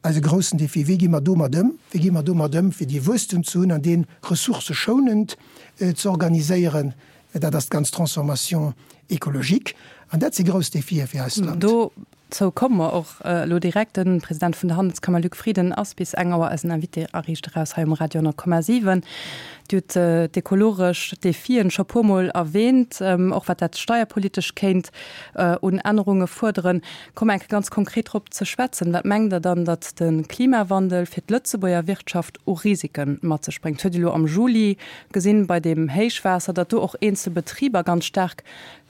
Eise groussen Défi, Wéi gi mer domat ëm? Wéi gi mer domat ëm, fir dee Wuesstum ze hunn an dee ressourcëschounend ze organiséieren? Dat ass d'ganz Transformation écologique. An dat si grouss Défië fir eist Land. Do. Dozou komme mer och elo direkt. De President vun der Handelskammer Luc Frieden ass bis eng Auer eisen Invité a Riicht Eraus hei um Radio 10,7. Dir hutt d'ekologesch Defien scho puer Mol erwähnt, och wat dat steierpolitesch kéint un Ännerunge fuerderen. Komme mer eng Kéier ganz konkret drop ze schwätzen. Wat mengt Der dann, datt de Klimawandel fir d'Lëtzebuerger Wirtschaft u Risike mat sech bréngt? Huet Dir elo am Juli gesinn bei deem Héichwaasser, datt do och eenzel Betriber ganz staark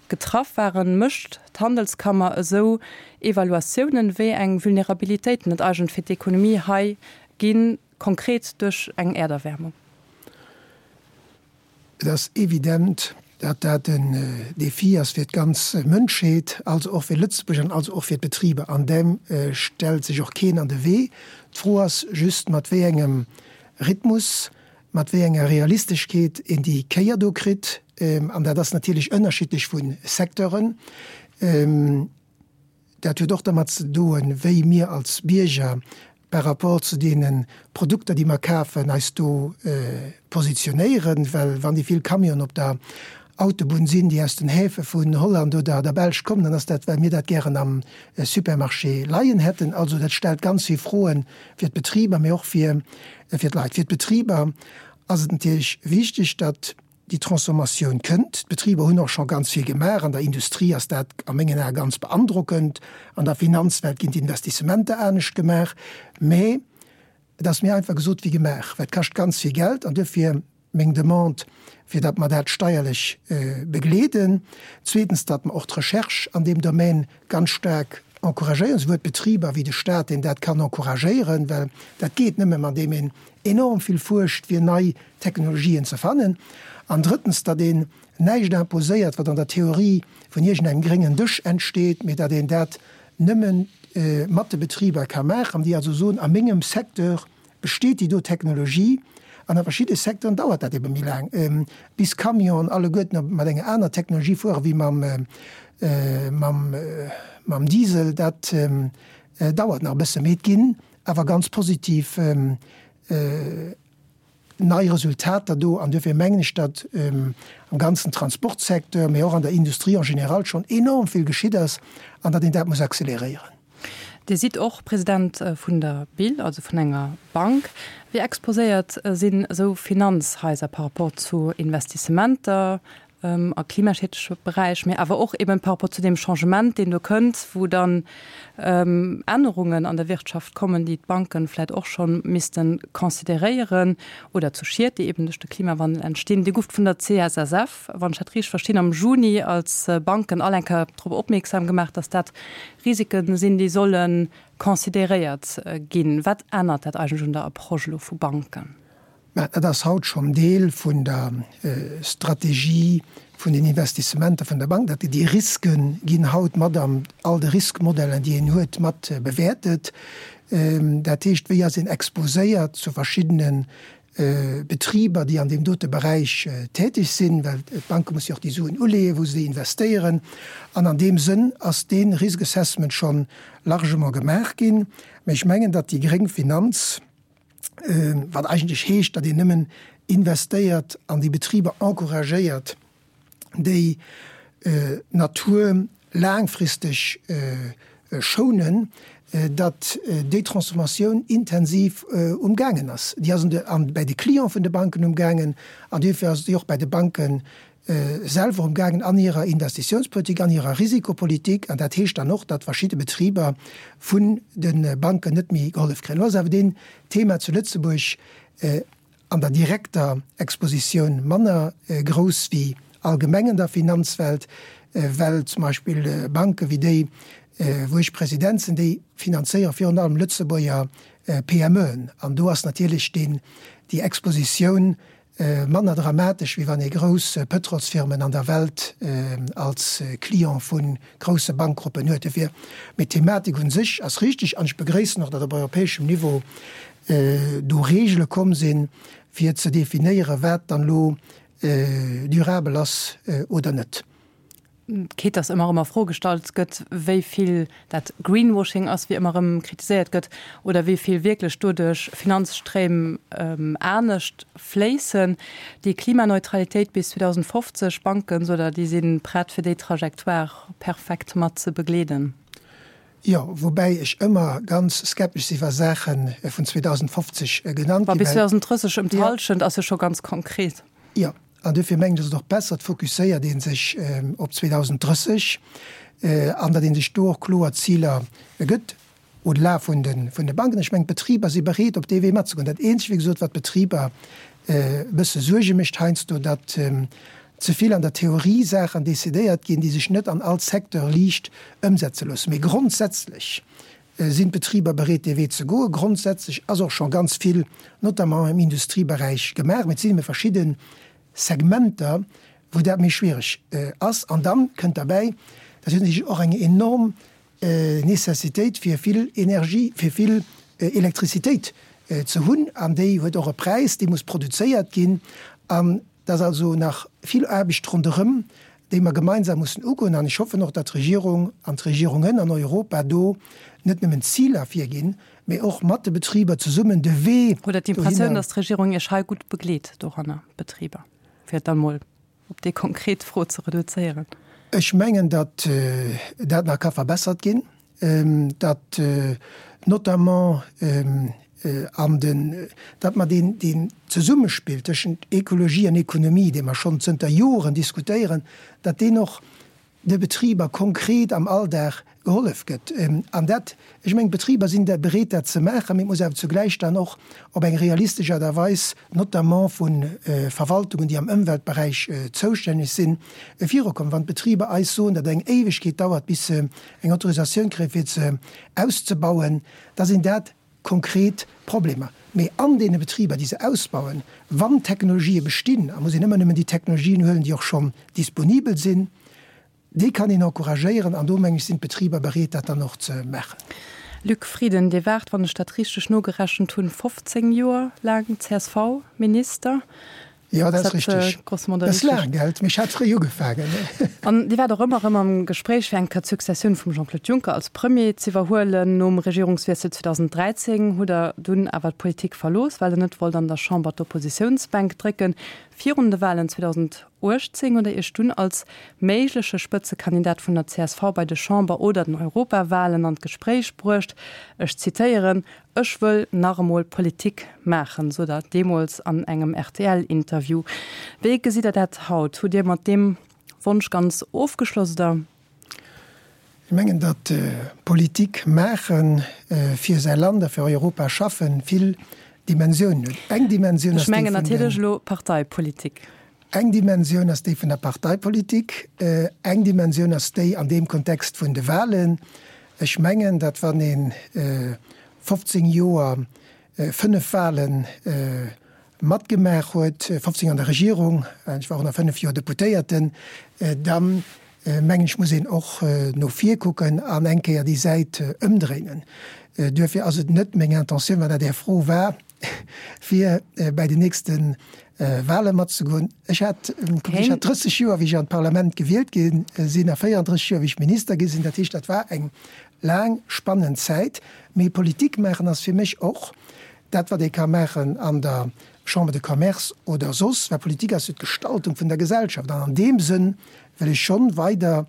getraff waren, mécht d'Handelskammer esou Evaluatiounen, wéi eng Vulnerabilitéiten et eigentlech fir d'Ekonomie hei ginn, konkret duerch eng Äerderwärmung? Et ass evident, datt dat en Défi ass fir d'ganz Mënschheet, also och fir Lëtzebuerg an also och fir d'Betriber. An deem stellt sech och keen an de Wee. D'Fro ass just, mat wéi engem Rhythmus mat wéi enger Realisteschkeet een déi Kéier do kritt, an dat ass natierlech ënnerschiddlech vu Secteuren. Dat huet och dermat ze doen, wéi mir als Bierger par rapport zu deene Produkter, déi mer kafen, eis do positionéieren. Well wann déi vill Camionen op der Autobunn sinn, déi aus den Häfe vun Holland oder der Belsch kommen, dann ass dat, well mir dat gären am Supermarché leien hätten. Also dat stellt ganz vill Froen fir d'Betriber, mee och fir d'Leit. Fir d'Betriber ass et natierlech wichteg, datt déi Transformatioun kënnt. D'Betriber hunn och scho ganz vill gemaach. An der Industrie ass dat a mengen Ae ganz beandrockend. An der Finanzwelt ginn d'Investissementer anescht gemaach. Mee et ass méi einfach gesot wéi gemaach, well et kascht ganz vill Geld an duerfir meng Demande, fir datt mer dat steierlech begleeden. Zweetens, datt mer och d'Recherche an deem Domaine ganz staark encouragéieren, souwuel d'Betriber wéi de Stat, deen dat kann encouragéieren, well dat geet nëmme, andeem een enorm vill fuerscht, fir nei Technologien ze fannen. An drëttens, datt een näischt imposéiert, wat an der Theorie vun iergendengem gréngen Dësch entsteet, mee datt een dat nëmme mat de Betriber ka maachen, déi also soen, a mengem Secteur besteet déi do Technologie an a verschidde Secteuren dauert dat ebe méi laang, bis Camionen alleguerten mat enger aner Technologie fuere wéi mam Diesel. Dat dauert nach e bësse, mee et ginn awer ganz positiv nei Resultater do. An duerfir mengen ech, datt am ganzen Transportsecteur, mee och an der Industrie en général schonn enorm vill geschitt ass an datt een dat muss acceleréieren. Dir sidd och President vun der BIL, also vun enger Bank. Wéi exposéiert sinn esou Finanzhaiser par rapport zu Investissementer a klimaschiedleche Beräich, mee awer och eben par rapport zu deem Changement, deen do kënnt, wou dann Ännerungen an der Wirtschaft kommen, déi d'Banken vläicht och scho misste consideréieren, oder zu Schied, déi eben duerch de Klimawandel entstinn. Dir gouft vun der CSSF, wann ech dat richteg verstinn, am Juni als Banken all eng Kéier drop opmierksam gemaach, dass dat Risiken sinn, déi solle consideréiert ginn. Wat ännert dat eigentlech un der Approche elo vu Banken? Mä dat ass haut schonn Deel vun der Strategie vun den Investissementer vun der Bank. Dat déi Riske ginn haut mat an all de Riskmodellen, déi een huet, mat bewäertet. Dat heescht, wéi ass een exposéiert zu verschiddene Betriber, déi an deem dote Beräich täteg sinn, well d'Banke musse jo och déi Suen uleeën, wou se déi investéieren. An an deem Sënn ass dee Risk Assessment scho largement gemaach ginn. Mä ech mengen, datt déi gréng Finanz, wat eigentlech heescht, datt een nëmmen investéiert an déi Betriber encouragéiert, déi d'Natur laangfristeg schounen, datt déi Transformatioun intensiv umgaangen ass. Déi ass bäi de Cliente vun de Banken umgaangen an duerfir ass déi och bäi de Banke selwer umgaangen an hirer Investitiounspolitik, an hirer Risikopolitik. An dat heescht dann och, datt verschidde Betriber vun de Banken net méi gehollef kréien. Elo ass awer deen Thema zu Lëtzebuerg an der direkter Expositioun manner grouss wéi allgemeng an der Finanzwelt, well zum Beispill Banke wéi déi, wou ech President sinn, déi finanzéiere virun allem Lëtzebuerger PMEen. An do ass natierlech deen, déi Expositioun manner dramatesch, wéi wann ee grouss Pëtrolsfirmen an der Welt als Client vu grousse Bankgruppen huet. Dofir, mee d'Thematik un sech ass richteg an ech begréissen och, datt op europäeschem Niveau do Reegele komm sinn, fir ze definéieren, wat dann elo durabel ass oder net. Quitte dass ëmmer erëm a Fro gestallt gëtt, wéi vill dat Greenwashing ass, wéi ëmmer erëm kritiséiert gëtt, oder wéi vill wierklech doduerch Finanzstréim anescht fléissen. Déi Klimaneutralitéit bis 2050, Banken, sot Der, déi si prett, fir déi Trajectoire perfekt mat ze begleeden? Jo, woubäi ech ëmmer ganz skeptesch si wa Saache vun 2050 genannt ginn. Mä bis 2030 ëm d'Hallschent ass jo scho ganz konkret. Jo, an duerfir mengen ech, ass et och besser, et fokusséiert ee sech op 2030 an datt ee sech do och kloer Ziler gëtt, au-delà vun de Banken. Ech mengen, d'Betriber si bereet, op dee Wee matzegoen. Dat Eenzegt, wéi gesot, wat d'Betriber e bësse Suerge mécht heiansdo, datt ze vill an der Theorie Saachen decidéiert ginn, déi sech net an all Secteur liicht ëmsetze loossen. Mee grondsätzlech sinn d'Betriber bereet, dee Wee ze goen. Grondsätzlech ass och scho ganz vill, notamment im Industrieberäich, gemaach. Mee et sinn ebe verschidde Segmenter, wou dat méi schwiereg ass. An da kënnt derbäi, dat huet natierlech och eng enorm Necessitéit fir vill Energie, fir vill Elektrizitéit ze hunn, an déi huet och e Präis, déi muss produzéiert ginn. An et ass also nach vill Aarbecht ronderëm, déi mer gemeinsam mussen ugoen. An ech hoffen och, datt d'Regierung an d'Regierungen an Europa do net nëmmen Ziler virginn, mee och mat de Betriber zesummen de Wee Hutt Der d'Impressioun, datt d'Regierung Iech hei gutt begleet doranner, d'Betriber, fir et dann emol op déi konkret Fro ze reduzéieren? Ech mengen, datt dat nach ka verbessert ginn, datt notamment an den, datt mer deen, deen Zesummespill tëschent Ekologie an Ekonomie, dee mer schonn zënter Joren diskutéieren, datt deen och de Betriber konkret am Alldag gehollef gëtt. An dat, ech mengen, d'Betriber sinn da bereet, dat ze maachen, mee et muss awer zugläich dann och op eng realistesch Aart a Weis, notamment vu Verwaltungen, déi am Ëmweltberäich zoustänneg sinn, virukommen. Wann d'Betriber eis soen, datt et eng Éiwegkeet dauert, bis se eng Autorisatioun kréien, fir se auszebauen, da sinn dat konkret Problemer. Mee an deene Betriber, déi se ausbauen, wann Technologië bestinn, a muss een ëmmer nëmmen déi Technologien huelen, déi och schonn disponibel sinn, déi kann een encouragéieren an do, meng ech, sinn d'Betriber bereet, dat dann och ze maachen. Luc Frieden, Dir waart, wann ech dat richteg nogerechent hunn, 15 Joer laang CSV-Minister. Jo, dat ass richteg. Dat ass laang, gell? Mee ech hat fréi ugefaangen. An Dir waart och ëmmer erëm am Gespréich, fir eng Kéier d'Successioun vum Jean-Claude Juncker als Premier z'iwwerhuelen. Nom Regierungswiessel 2013 hutt Der dunn awer d'Politik verlooss, well Der net wollt an der Chamber d'Oppositiounsbänk drécken. Virun de Walen 2018 hutt Der Iech dunn als méigleche Spëtzekandidat vun der csv bei de Chamber oder den Europawalen an d'Gespréich bruecht. Ech zitéieren, Ech wëll nach emol Politik maachen, sot Der deemools an engem RTL-Interview. Wéi gesitt Der dat haut? Hutt Dir mat deem Wonsch ganz ofgeschloss oder? Ech mengen, datt Politik maachen, fir säi Land a fir Europa schaffen, vill Dimensiounen huet. Eng Dimensioun ass déi vun den. Ech mengen natierlech elo Parteipolitik. Eng Dimensioun ass déi vun der Parteipolitik, eng Dimensioun ass déi an deem Kontext vun de Wahlen. Ech mengen, datt wann ee 15 Joer fënnef Wahle matgemaach huet, 15 an der Regierung, ech war och nach fënnef Joer Deputéierten, da mengen ech muss een och no vir kucken an eng Kéier déi Säit ëmdréinen. Duerfir ass et net meng Intentioun, wann dat Är Fro war, fir bäi den nächste Wahle matzegoen. Ech hat, kuck, ech hat 30 Joer, wéi ech an d'Parlament gewielt gi sinn, a 34 Joer, wéi ech Minister gi sinn. Dat heescht, dat war eng laang, spannend Zäit. Mee Politik maachen ass fir mech och dat, wat ee ka maachen an der Chambre de Commerce oder soss, well Politik ass jo d'Gestaltung vun der Gesellschaft. An an deem Sënn wëll ech schonn weider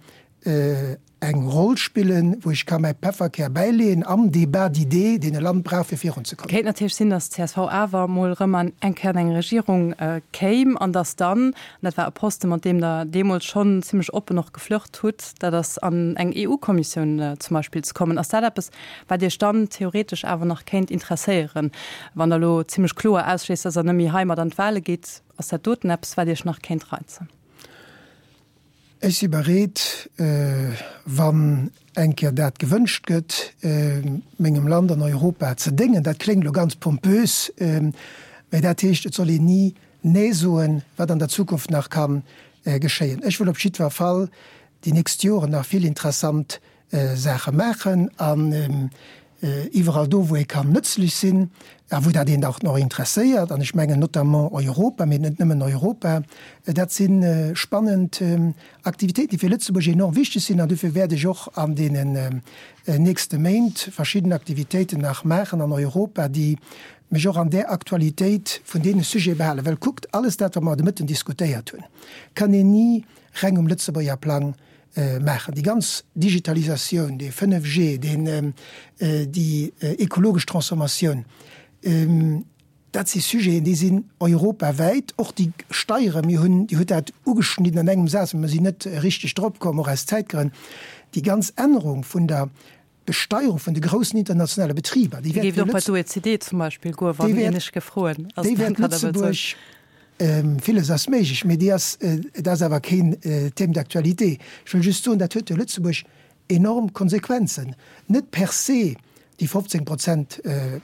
eng Roll spillen, wou ech ka mäi Pefferkär bäileeën am Débat d'idées, deen e Land brauch, fir virunzekommen. Kéint natierlech sinn, datt d'CSV awer emol erëm an eng Kéier an eng Regierung kéim an datt dann, an dat war e Posten, mat deem Der deemools schonn zimlech oppen och geflirt hutt, dat ass an eng EU-Kommissioun zum Beispill ze kommen. Ass dat eppes, wat Iech dann theoretesch awer nach kéint interesséieren, wann Der elo zimlech kloer ausschléisst, datt Der net méi heimat an d'Wahle gitt? Ass dat doten eppes, wat Iech nach kéint reizen? Ech si bereet, wann eng Kéier dat gewënscht gëtt, mengem Land an Europa ze déngen. Dat kléngt elo ganz pompös, mä dat heescht, et soll een ni Nee soen, wat an der Zukunft nach ka geschéien. Ech wëll op jiddwer Fall déi nächst Joren nach vill interessant Saache maachen an iwwerall do, wou ee kann nëtzlech sinn a wou dat een och nach interesséiert, an ech mengen notamment Europa, mee net nëmmen Europa, dat si spannend Aktivitéiten, déi fir Lëtzebuerg enorm wichteg sinn. An dofir wäert ech och an deenen nächste Méint verschidden Aktivitéiten nach maachen an Europa, déi mech och an där Aktualitéit vun deene Sujete behalen. Well kuckt, alles dat, wat mer de Mëtten diskutéiert hunn, kann een ni reng um Lëtzebuerger Plang. maachen. Déi ganz Digitalisatioun, dee 5G, deen, déi ekologesch Transformatioun, dat si Sujeten, déi sinn europawäit. Och déi Steieren, mir hunn, Dir hutt dat ugeschnidden an engem Saz, mä mer sinn net richteg drop komm, och aus Zäitgrënn, déi ganz Ännerung vun der Besteierung vun de groussen internationale Betriber, déi wäert och bei d'OECD zum Beispill goen, wann een ech gefroen ass. Déi wäert Lëtzebuerg, villes ass méiglech, mee déi ass, et ass awer keen Thème d'actualité. Ech wëll just soen, dat huet fir Lëtzebuerg enorm Konsequenzen, net per se déi 15 Prozent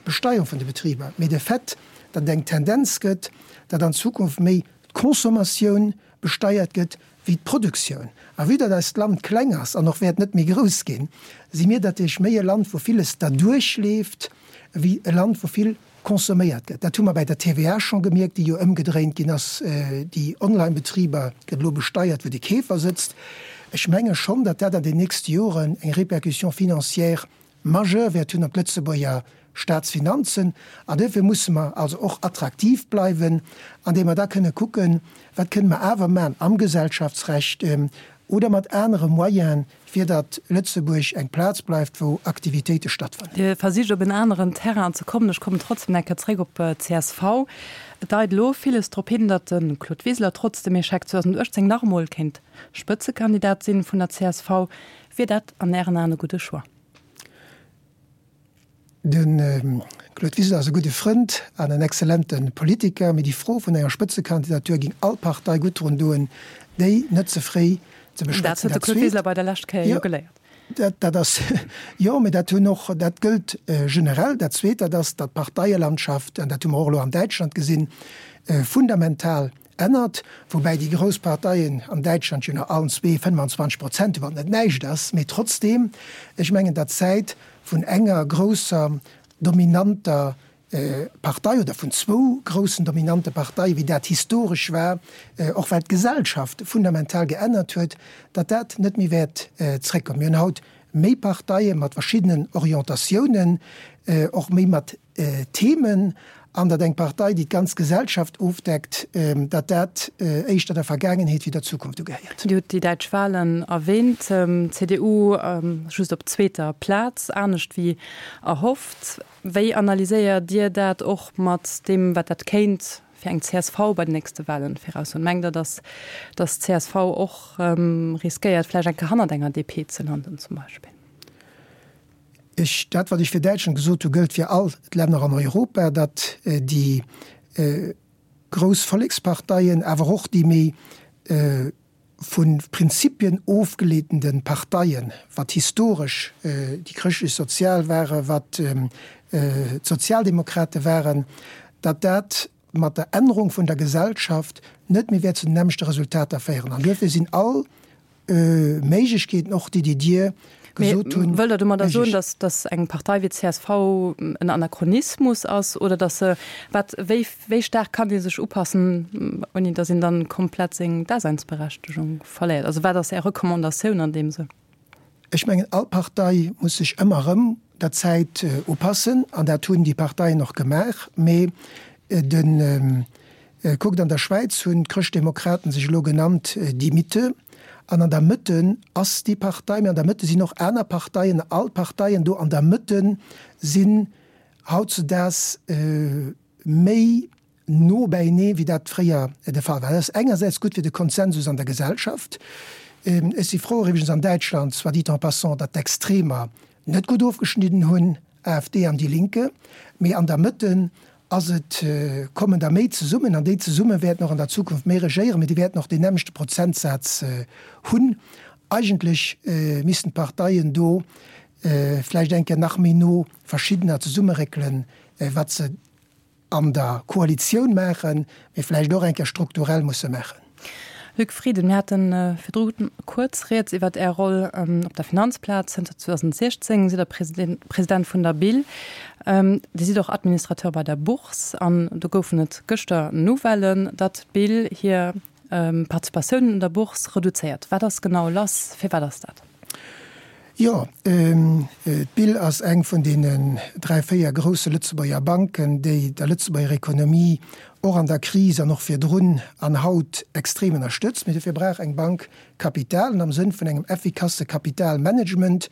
Besteierung vun de Betriber, mee de Fait, datt et eng Tendenz gëtt, datt an Zukunft méi d'Consommatioun besteiert gëtt wéi d'Produktioun. A vue datt eist Land kleng ass an och wäert net méi grouss ginn, si mir natierlech méi e Land, wou villes derduerch leeft, wéi e Land, wou vill consomméiert gëtt. Dat hu mer bäi der TVA scho gemierkt, déi jo ëmgedréint ginn ass. Déi Online-Betriber gëtt elo besteiert, wou de Keefer sëtzt. Ech menge schonn, datt dat an den nächste Joren eng Répercussion financière majeure wäert hunn op d'Lëtzebuerger Staatsfinanzen. An duerfir musse mer also och attraktiv bleiwen, andeem mer da kënne kucken, wat kënne mer awer maachen am Gesellschaftsrecht oder mat anere Moyenen, fir datt Lëtzebuerg eng Plaz bleift, wou Aktivitéite stattfannen. Dir versicht op en aneren Terrain ze kommen. Ech kommen trotzdem eng Kéier zréck op d'CSV. Et deit elo villes drop hin, datt de Claude Wiseler trotz dem Echec 2018 nach emol kéint Spëtzekandidat sinn vun der csv. Wier dat an Ären Aen e gudde Choix? De Claude Wiseler ass e gudde Frënd an en exzellente Politiker, mee déi Fro vun enger Spëtzekandidatur géing all Partei gutt drun doen, déi net ze fréi ze beschwätzen. Dat huet de Claude Wiseler bei der lescht Kéier jo geléiert. Dat ass, jo, mee dat hunn och, dat gëllt generell. Dat Zweet, dat ass, datt d'Parteielandschaft, an dat hu mer och elo an Däitschland gesinn, fundamental ännert, woubäi déi grouss Parteien an Däitschland jo nach allen zwee 25 Prozent hunn, wat net näischt ass, mee trotzdeem, ech mengen, datt d'Zäit vun enger grousser dominanter Partei oder vun zwou groussen dominante Parteien, wéi dat historesch war, och well d'Gesellschaft fundamental geännert huet, datt dat net méi wäert zréckkommen. Mir hunn haut méi Parteie mat verschiddenen Orientatiounen, och méi mat Themen an datt eng Partei, déi d'ganz Gesellschaft ofdeckt, datt dat éischter der Vergaangenheet wéi der Zukunft ugehéiert. Dir hutt déi däitsch Wahlen erwähnt. D'CDU just op zweeter Plaz, anescht wéi erhofft. Wéi analyséiert Dir dat och mat deem, wat dat kéint fir eng csv bei den nächste Wahlen viraussoen? Mengt Der, datt d'CSV och riskéiert, vläicht eng Kéier hannert enger DP ze landen zum Beispill? Ech, dat wat ech fir Däitschland gesot hu gëllt fir all d'Länner an Europa, datt déi grouss Volleksparteien, awer och déi méi vu Prinzipien ofgeleetende Parteien, wat historesch déi chrëschtlech-sozial ware, wat d'Sozialdemokrate waren, datt dat mat der Ännerung vun der Gesellschaft net méi wäert zu den nämmlechte Resultater féieren. An duerfir sinn all Méiglechkeeten och, déi déi Dir gesot hunn. Wëllt Der domadder soen, datt, datt eng Partei wéi d'CSV en Anachronismus ass oder datt se, wat, wéi, wéi staark kann déi sech upassen, ouni datt een dann komplett seng Daseinsberechtegung verléiert? Also wat ass Är Recommandatioun an deem Sënn? Ech mengen, all Partei muss sech ëmmer erëm der Zäit upassen an dat hunn déi Parteien och gemaach. Mee de, kuckt, an der Schwäiz hunn d'Chrëschtdemokraten sech elo genannt Die Mitte. An an der Mëtte ass déi Partei, mee an der Mëtte sinn och aner Parteien. All d'Parteien do an der Mëtte sinn hautzedaags méi no bäinee wéi dat fréier de Fall war. Dat ass engersäits gutt fir de Konsensus an der Gesellschaft. Ech si frou iwwregens an Däitschland, soit dit en passant, datt d'Extremer net gutt ofgeschnidden hunn, AfD an Die Linke, mee an der Mëtte ass et, kommen der méi zesummen an déi zesumme wäerten och an der Zukunft méi regéieren, mee déi wäerten och deen nämmlechte Prozentsaz hunn. Eigentlech missten d'Parteien do vläicht eng Kéier nach méi no verschiddener zesummeréckelen, wat se an der Koalitioun maachen, mee vläicht och eng Kéier strukturell musse maachen. Luc Frieden, mir hate virdru kuerz rieds iwwert Är Roll op der Finanzplaz. Zënter 2016 sidd Der President vun der BIL. Dir sidd och Administrateur bei der Bourse an do goufen et gëschter Nouvellen, datt d'BIL hir Participatioun un der Bourse reduzéiert. Wat ass genau lass? Firwat ass dat? Jo, d'BIL ass eng vun deenen 3, 4 grousse Lëtzebuerger Banken, déi der Lëtzebuerger Ekonomie och an der Kris an och virdrun an haut extrem ënnerstëtzt. Mee dofir brauch eng Bank Kapital. An am Sënn vun engem effikasse Kapitalmanagement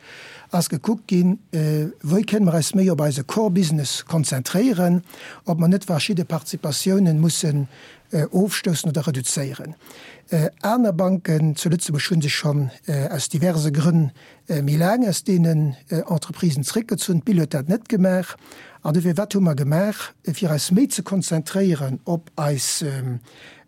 ass gekuckt ginn, wéi kënne mer eis méi op eise Core Business konzentréieren, ob mer net verschidde Participatiounen mussen ofstoussen oder reduzéieren. Aner Banken zu Lëtzebuerg hu sech schonn aus diverse Grënn méi laang aus deenen Entreprisen zréckgezunn. D'BIL huet dat net gemaach. An dofir, wat hu mer gemaach, fir eis méi ze konzentréieren op eis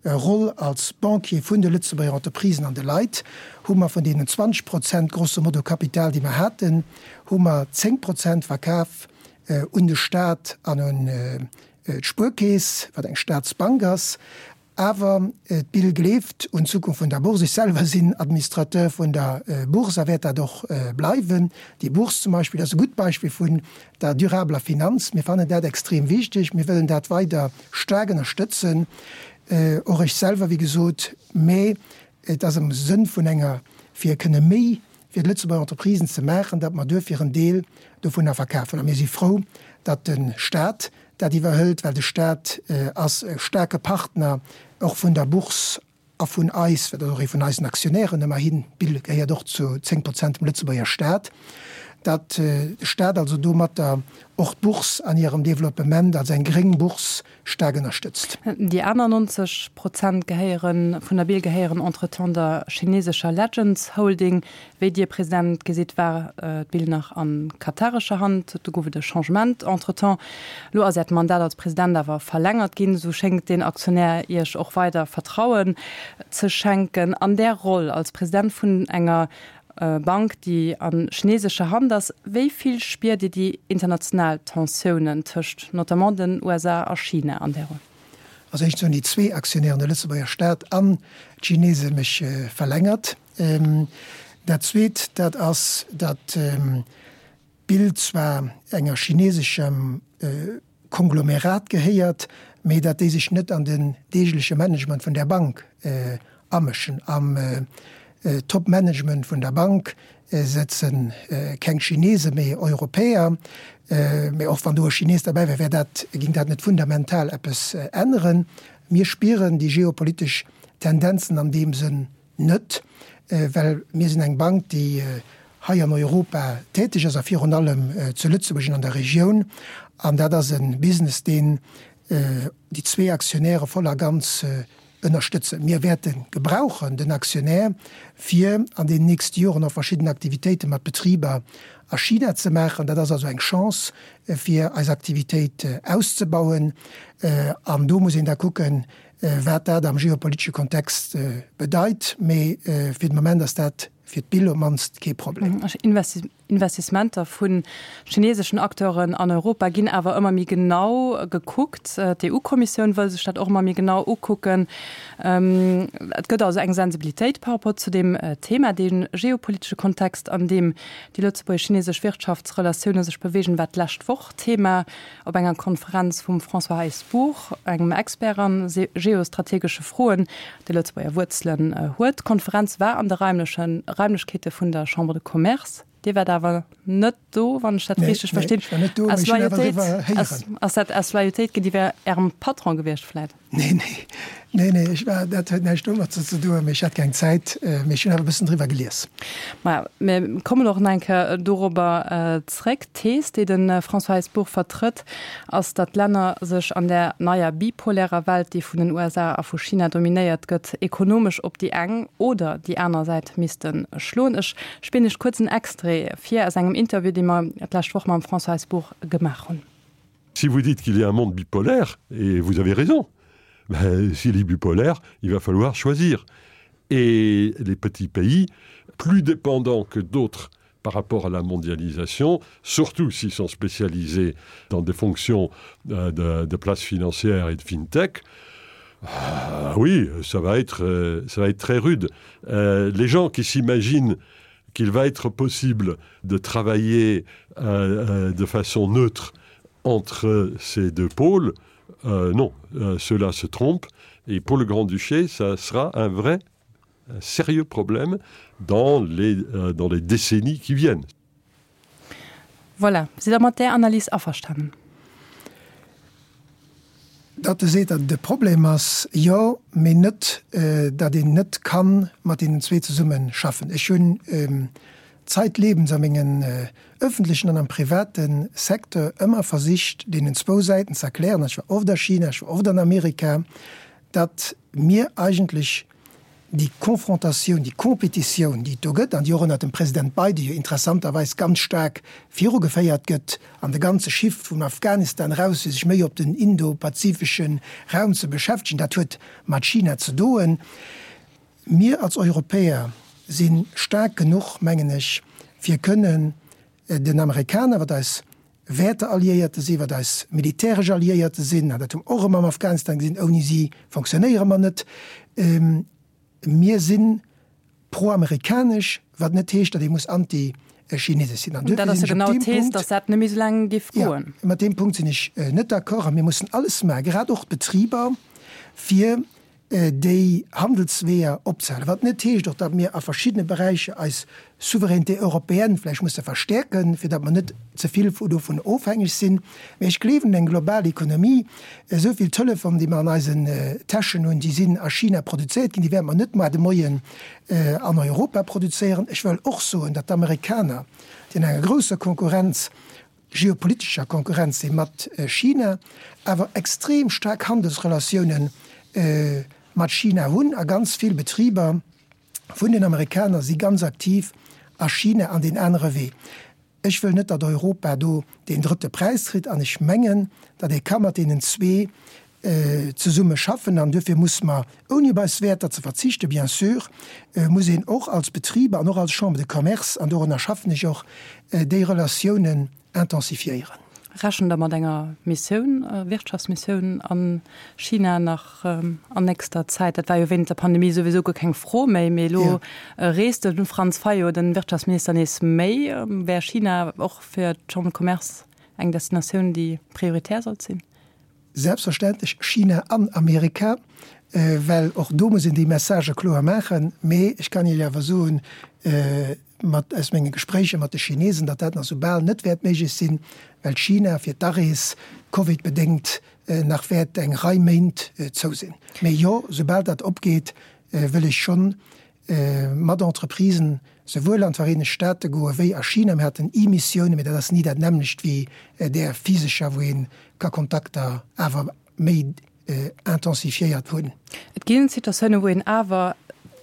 Roll als Banquier vun de Lëtzebuerger Entreprisen an de Leit, hu mer vun deenen 20 Prozent grosso modo Kapital, déi mer haten, hu mer 10 Prozent verkaf un de Stat an un d'Spuerkeess, wat eng Staatsbank ass. Awer d'BIL gleeft un d'Zukunft vun der Bourse. Ech selwer sinn Administrateur vun der Bourse a wäert dat och bleiwen. Déi Bourse zum Beispill ass e gutt Beispill vun der durabeler Finanz. Mir fannen dat extrem wichteg. Mir wëllen dat weider staark ënnerstëtzen, och ech selwer, wéi gesot. Mä et ass am Sënn vun enger, fir kënne méi fir d'Lëtzebuerger Entreprisen ze maachen, datt mer duerfir en Deel dovunner verkafen. A mir si frou, datt de Stat dat iwwerhëlt, well de Stat ass e staarke Partner och vun der Bourse a vun eis, well dat ass och ee vun eisen Aktionären ëmmerhin, d'BIL gehéiert och zu 10 Prozent dem Lëtzebuerger Stat, datt de Stat also domatter och d'Bourse an hirem Développement als eng gréng Bourse staark ënnerstëtzt. Déi aner 90 Prozent gehéieren, vun der BIL gehéieren entretemps der chinesescher Legends Holding. Wéi Dir, President, gesitt, war d'BIL nach a katarescher Hand. Do gouf et e Changement entretemps. Elo ass Äert Mandat als President awer verlängert ginn. Esou schéngt deen Aktionär Iech och weider Vertrauen ze schenken. An där Roll als President vun enger Bank, déi a chinesescher Hand ass, wéi vill spiert Dir déi international Tensiounen tëscht notamment den USA a China an där Roll? Also éischtens hunn déi zwee Aktionären, de Lëtzebuerger Staat an d'Chinese mech verlängert. Dat Zweet, dat ass, datt d'Bild zwar enger chineseschem Konglomerat gehéiert, mee datt déi sech net an den deegleche Management vun där Bank amëschen. Am Top-Management vun der Bank sëtze keng Chinesen, mee Europäer. Mee och wann do e Chines derbäi wär, wär dat, géing dat net fundamental eppes änneren. Mir spieren déi geopolitesch Tendenzen an deem Sënn net, well mir sinn eng Bank, déi hei an Europa täteg ass a virun allem zu Lëtzebuerg an an der Regioun. An dat ass e Business, deen déi zwee Aktionäre voll a ganz ënnerstëtzen. Mir wäerte gebrauchen den Aktionär, fir an deenen nächste Joren och verschidden Aktivitéite mat Betriber a China ze maachen. Dat ass also eng Chance, fir eis Aktivitéit auszebauen. An do muss een da kucken, wat dat am geopolitesche Kontext bedeit. Mee fir de Moment ass dat fir d'BIL op d'mannst kee Problem. Investissementer vu chineseschen Acteuren an Europa ginn awer ëmmer méi genau gekuckt. D'EU-Kommissioun wëll sech dat och ëmmer méi genau ukucken. Et gëtt also eng Sensibilitéit par rapport zu deem Thema. Dee geopolitesche Kontext, an deem déi lëtzebuergesch-chinesesch Wirtschaftsrelatioune sech beweegen, war d'lescht Woch Thema Op enger Konferenz vum François Heisbourg, engem Expert a geostrategesche Froen, dee Lëtzebuerger Wuerzelen huet. D'Konferenz war an de raimleche Raimlechkeete vun der Chambre de Commerce. Dir waart awer net do, wann ech dat richteg verstinn. Aus Loyautéit, ass dat aus Loyautéit géintiwwer Ärem Patron gewiescht vläit? Nee, nee, nee, nee, ech war, dat huet näischt domat ze doen, mee ech hat keng Zäit, mee ech hunn awer e bëssen driwwer gelies. Maja, mir kommen och nach eng Kéier dorobber zréck. D'Thees, déi de François Heisbourg vertrëtt, ass, datt d'Länner sech an där neier bipolärer Welt, déi vun den USA a vu China dominéiert gëtt, ekonomesch op déi eng oder déi aner Säit misste schloen. Ech spillen Iech kuerz en Extrait vir aus engem Interview, dee mer d'lescht Woch mam François Heisbourg gemaach hunn. Si vous dites qu'il y a un monde bipolaire et vous avez raison s'il est bipolaire, il va falloir choisir et les petits pays plus dépendants que d'autres par rapport à la mondialisation, surtout s'ils sont spécialisés dans des fonctions euh, de, de places financières et de fintech, euh, oui, ça va être, euh, ça va être très rude. Euh, les gens qui s'imaginent qu'il va être possible de travailler euh, euh, de façon neutre entre ces deux pôles, euh, non, euh, cela se trompe et pour le Grand-Duché, ça sera un vrai un sérieux problème dans les, euh, dans les décennies qui viennent. Voilà, Sidd Der mat där Analys averstanen? Datt e seet, datt et e Problem ass, jo, mee net, datt een net ka mat deenen zwee zesumme schaffen. Ech hunn zeitlebens a mengen öffentlechen an am private Secteur ëmmer versicht, deenen zwou Säiten ze erklären, ech war oft a China, ech war oft an Amerika, datt mir eigentlech déi Confrontatioun, déi Competitioun, déi et do gëtt an déi och ënnert dem President Biden jo interessanterweis ganz staark virugeféiert gëtt, an de ganze Shift vum Afghanistan eraus, fir sech méi op den indo-pazifesche Raum ze beschäftegen, dat huet mat China ze doen. Mir als Europäer si staark genuch, mengen ech, fir kënnen den Amerikaner, wat eis Wäertealliéierte sinn, wat eis militäresch Alliéierte sinn, an dat hu mer och erëm am Afghanistan gesinn, ouni si fonctionnéiere mer net. Mir si proamerikanesch, wat net heescht, datt ee muss anti-chinesesch sinn. An duerfir sinn ech op deem Punkt, datt dat net méi esou laang géif goen. Jo, mat deem Punkt sinn ech net d'accord. A mir mussen alles maachen, grad och d'Betriber, fir déi Handelsweeër opzehalen, wat net heescht och, datt mir a verschiddene Beräicher eis Souveraineté européenne vläicht musse verstäerken, fir datt mer net ze vill dovun ofhängeg sinn. Mä ech gleewen un eng global Ekonomie. Esou vill Telefon, déi mer an eisen Täschen hunn, déi sinn a China produzéiert ginn, déi wäerte mer net moar de Moien an Europa produzéieren. Ech wëll och soen, datt d'Amerikaner, déi an enger grousser Konkurrenz geopolitescher Konkurrenz si mat China, awer extrem staark Handelsrelatioune mat China hunn a ganz vill Betriber vun den Amerikaner si ganz aktiv a China an deen anere Wee. Ech wëll net, datt Europa do deen drëtte Präis kritt an ech mengen, datt ee ka mat deenen zwee zesumme schaffen an duerfir muss mer, ouni op eis Wäerter ze verzichten, bien sûr, muss een och als Betriber an och als Chambre de Commerce, an dorunner schaffen ech och, déi Relatiounen intensifiéieren. Rechent Der mat enger Missioun, Wirtschaftsmissioun a China nach an nächster Zäit? Dat war jo wéinst der Pandemie souwisou guer keng Fro méi, mee elo reest de Franz Fayot, den Wirtschaftsminister, nees méi. Wär China och fir d'Chambre de Commerce eng Destinatioun, déi prioritär sollt sinn? Selbstverständlech China an Amerika, well och do muss een déi Messagë kloer maachen. Mee ech kann Iech awer soen, mat aus menge Gespréicher mat de Chinesen, datt dat nach sou bal net wäert méiglech sinn, well China fir d'Arees covidbedéngt nach wäert eng Rei Méint zou sinn. Mee jo, soubal dat opgeet, wëll ech schonn mat Entreprisen souwuel an d'Vereenegt Staate goe wéi a China. Mir haten E-Missiounen, mee dat ass ni dat nämmlecht wéi där physescher, wou ee ka Kontakter awer méi intensifiéiert hunn. Et ginn Situatiounen, wou een awer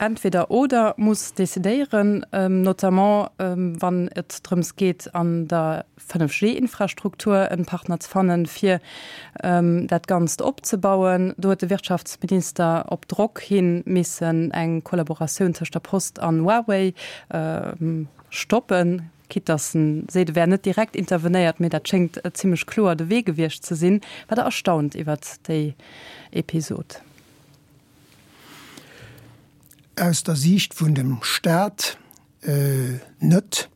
entweder oder muss decidéieren, notamment wann et drëms geet an der 5G-Infrastruktur en Partner ze fannen, fir dat Ganzt opzebauen. Do huet de Wirtschaftsminister op Drock hin missen eng Kollaboratioun tëscht der Post an Huawei stoppen, quitte dass en seet, e wär net direkt intervenéiert, mee dat schéngt zimmlech kloer de Wee gewiescht ze sinn. War Der erstaunt iwwert déi Episod? Aus der Siicht vun dem Staat net,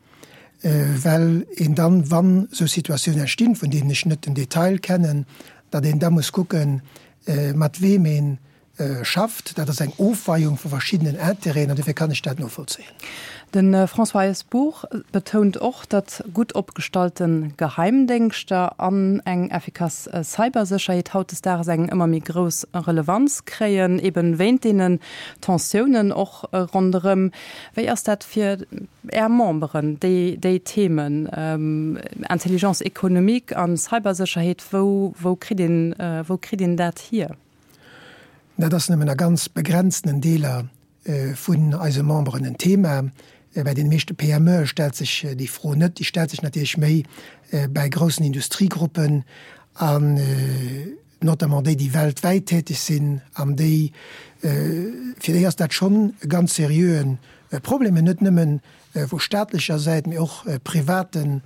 well een dann, wann esou Situatiounen entstinn, vun deenen ech net den Detail kennen, datt een da muss kucken, mat weem ee schafft. Dat ass eng Ofweiung vu verschiddenen Intérêten an dofir kann ech dat novollzéien. De François Heisbourg betount och, datt gutt opgestallte Geheimdéngschter an eng effikass Cybersécherheet hautdesdaags eng ëmmer méi grouss Relevanz kréien, eben wéint deenen Tensiounen och ronderëm. Wéi ass dat fir Är Memberen, déi, déi Themen, Intelligence économique an Cybersécherheet, wou, wou kritt een, wou kritt een dat hier? Dat ass nëmmen a ganz begrenztenen Deeler vun eise Memberen en Thema. Bäi deene meeschte PMEe stellt sech déi Fro net. Déi stellt sech natierlech méi bäi groussen Industriegruppen an notamment déi, déi weltwäit täteg sinn an déi, fir déi ass dat schonn e ganz seriöe Problem, net nëmme vu staatlecher Säit, mee och privaten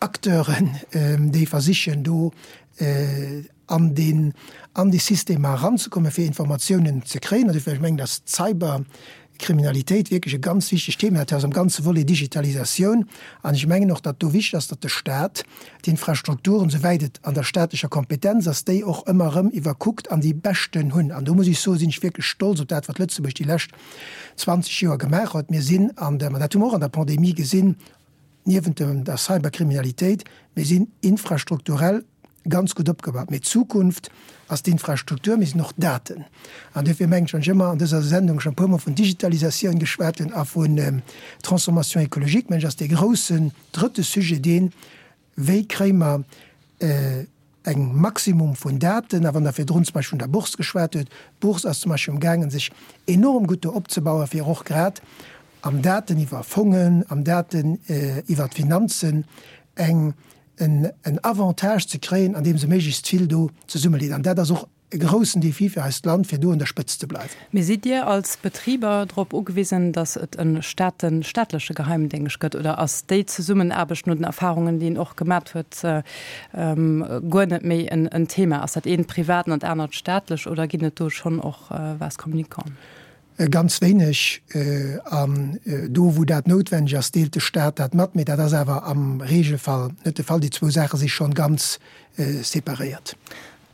Acteuren, déi versichen do an deen, an déi Systemer eranzekommen, fir Informatiounen ze kréien. An dofir, ech mengen, dass d'Cyberkriminalitéit wierklech e ganz wichtegt Thema ass am ganze Volet Digitalisatioun. An ech mengen och, datt do wichteg ass, datt de Stat d'Infrastrukturen, souwäit et an der staatlecher Kompetenz ass, déi och ëmmer erëm iwwerkuckt an déi beschten hunn. An do muss ech soen, sinn ech wierklech stolz op dat, wat Lëtzebuerg déi lescht 20 Joer gemaach huet. Mir sinn an der, ma dat hu mer och an der Pandemie gesinn, niewent der Cyberkriminalitéit, mir sinn infrastrukturell. ganz gutt opgebaut. Mee d'Zukunft ass d'Infrastruktur, mee sinn och d'Daten. An duerfir mengen ech, wann ech ëmmer an dëser Sendung schonn e puermol vun Digitalisatioun geschwat hunn a vun Transformation écologique, mengen ech, ass dee groussen drëtte Sujet deen, Wéi kréie mer eng Maximum vun Daten? A wann Der virdrun zum Beispill vun der Bourse geschwat huet, d'Bourse ass zum Beispill amgaangen, sech enorm gutt do opzebauen, fir och grad am Daten iwwer Fongen, am Daten iwwer d'Finanzen eng, en Avantage ze kréien, andeem se méiglechst vill do zesummeleet. An dat ass och e groussen Défi fir eist Land, fir do un der Spëtzt ze bleiwen. Mee sidd Dir als Betriber drop ugewisen, datt et e Staaten, staatleche Geheimdéngscht gëtt, oder ass déi Zesummenaarbecht no den Erfahrungen, déi een och gemat huet, guer net méi en Thema? Ass dat eent privat an dat anert staatlech, oder ginn et do schonn och Vases communicants? Ganz wéineg. An do, wou dat noutwenneg ass, deelt de Staat dat mat. Mee dat ass awer am Regelfall net de Fall. Déi zwou Saache si schonn ganz separéiert.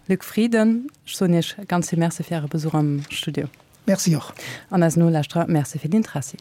Luc Frieden, ech soen Iech ganz vill Merci fir Äre Besuch am Studio. Merci och. An eisen Nolauschterer Merci fir d'Intressi.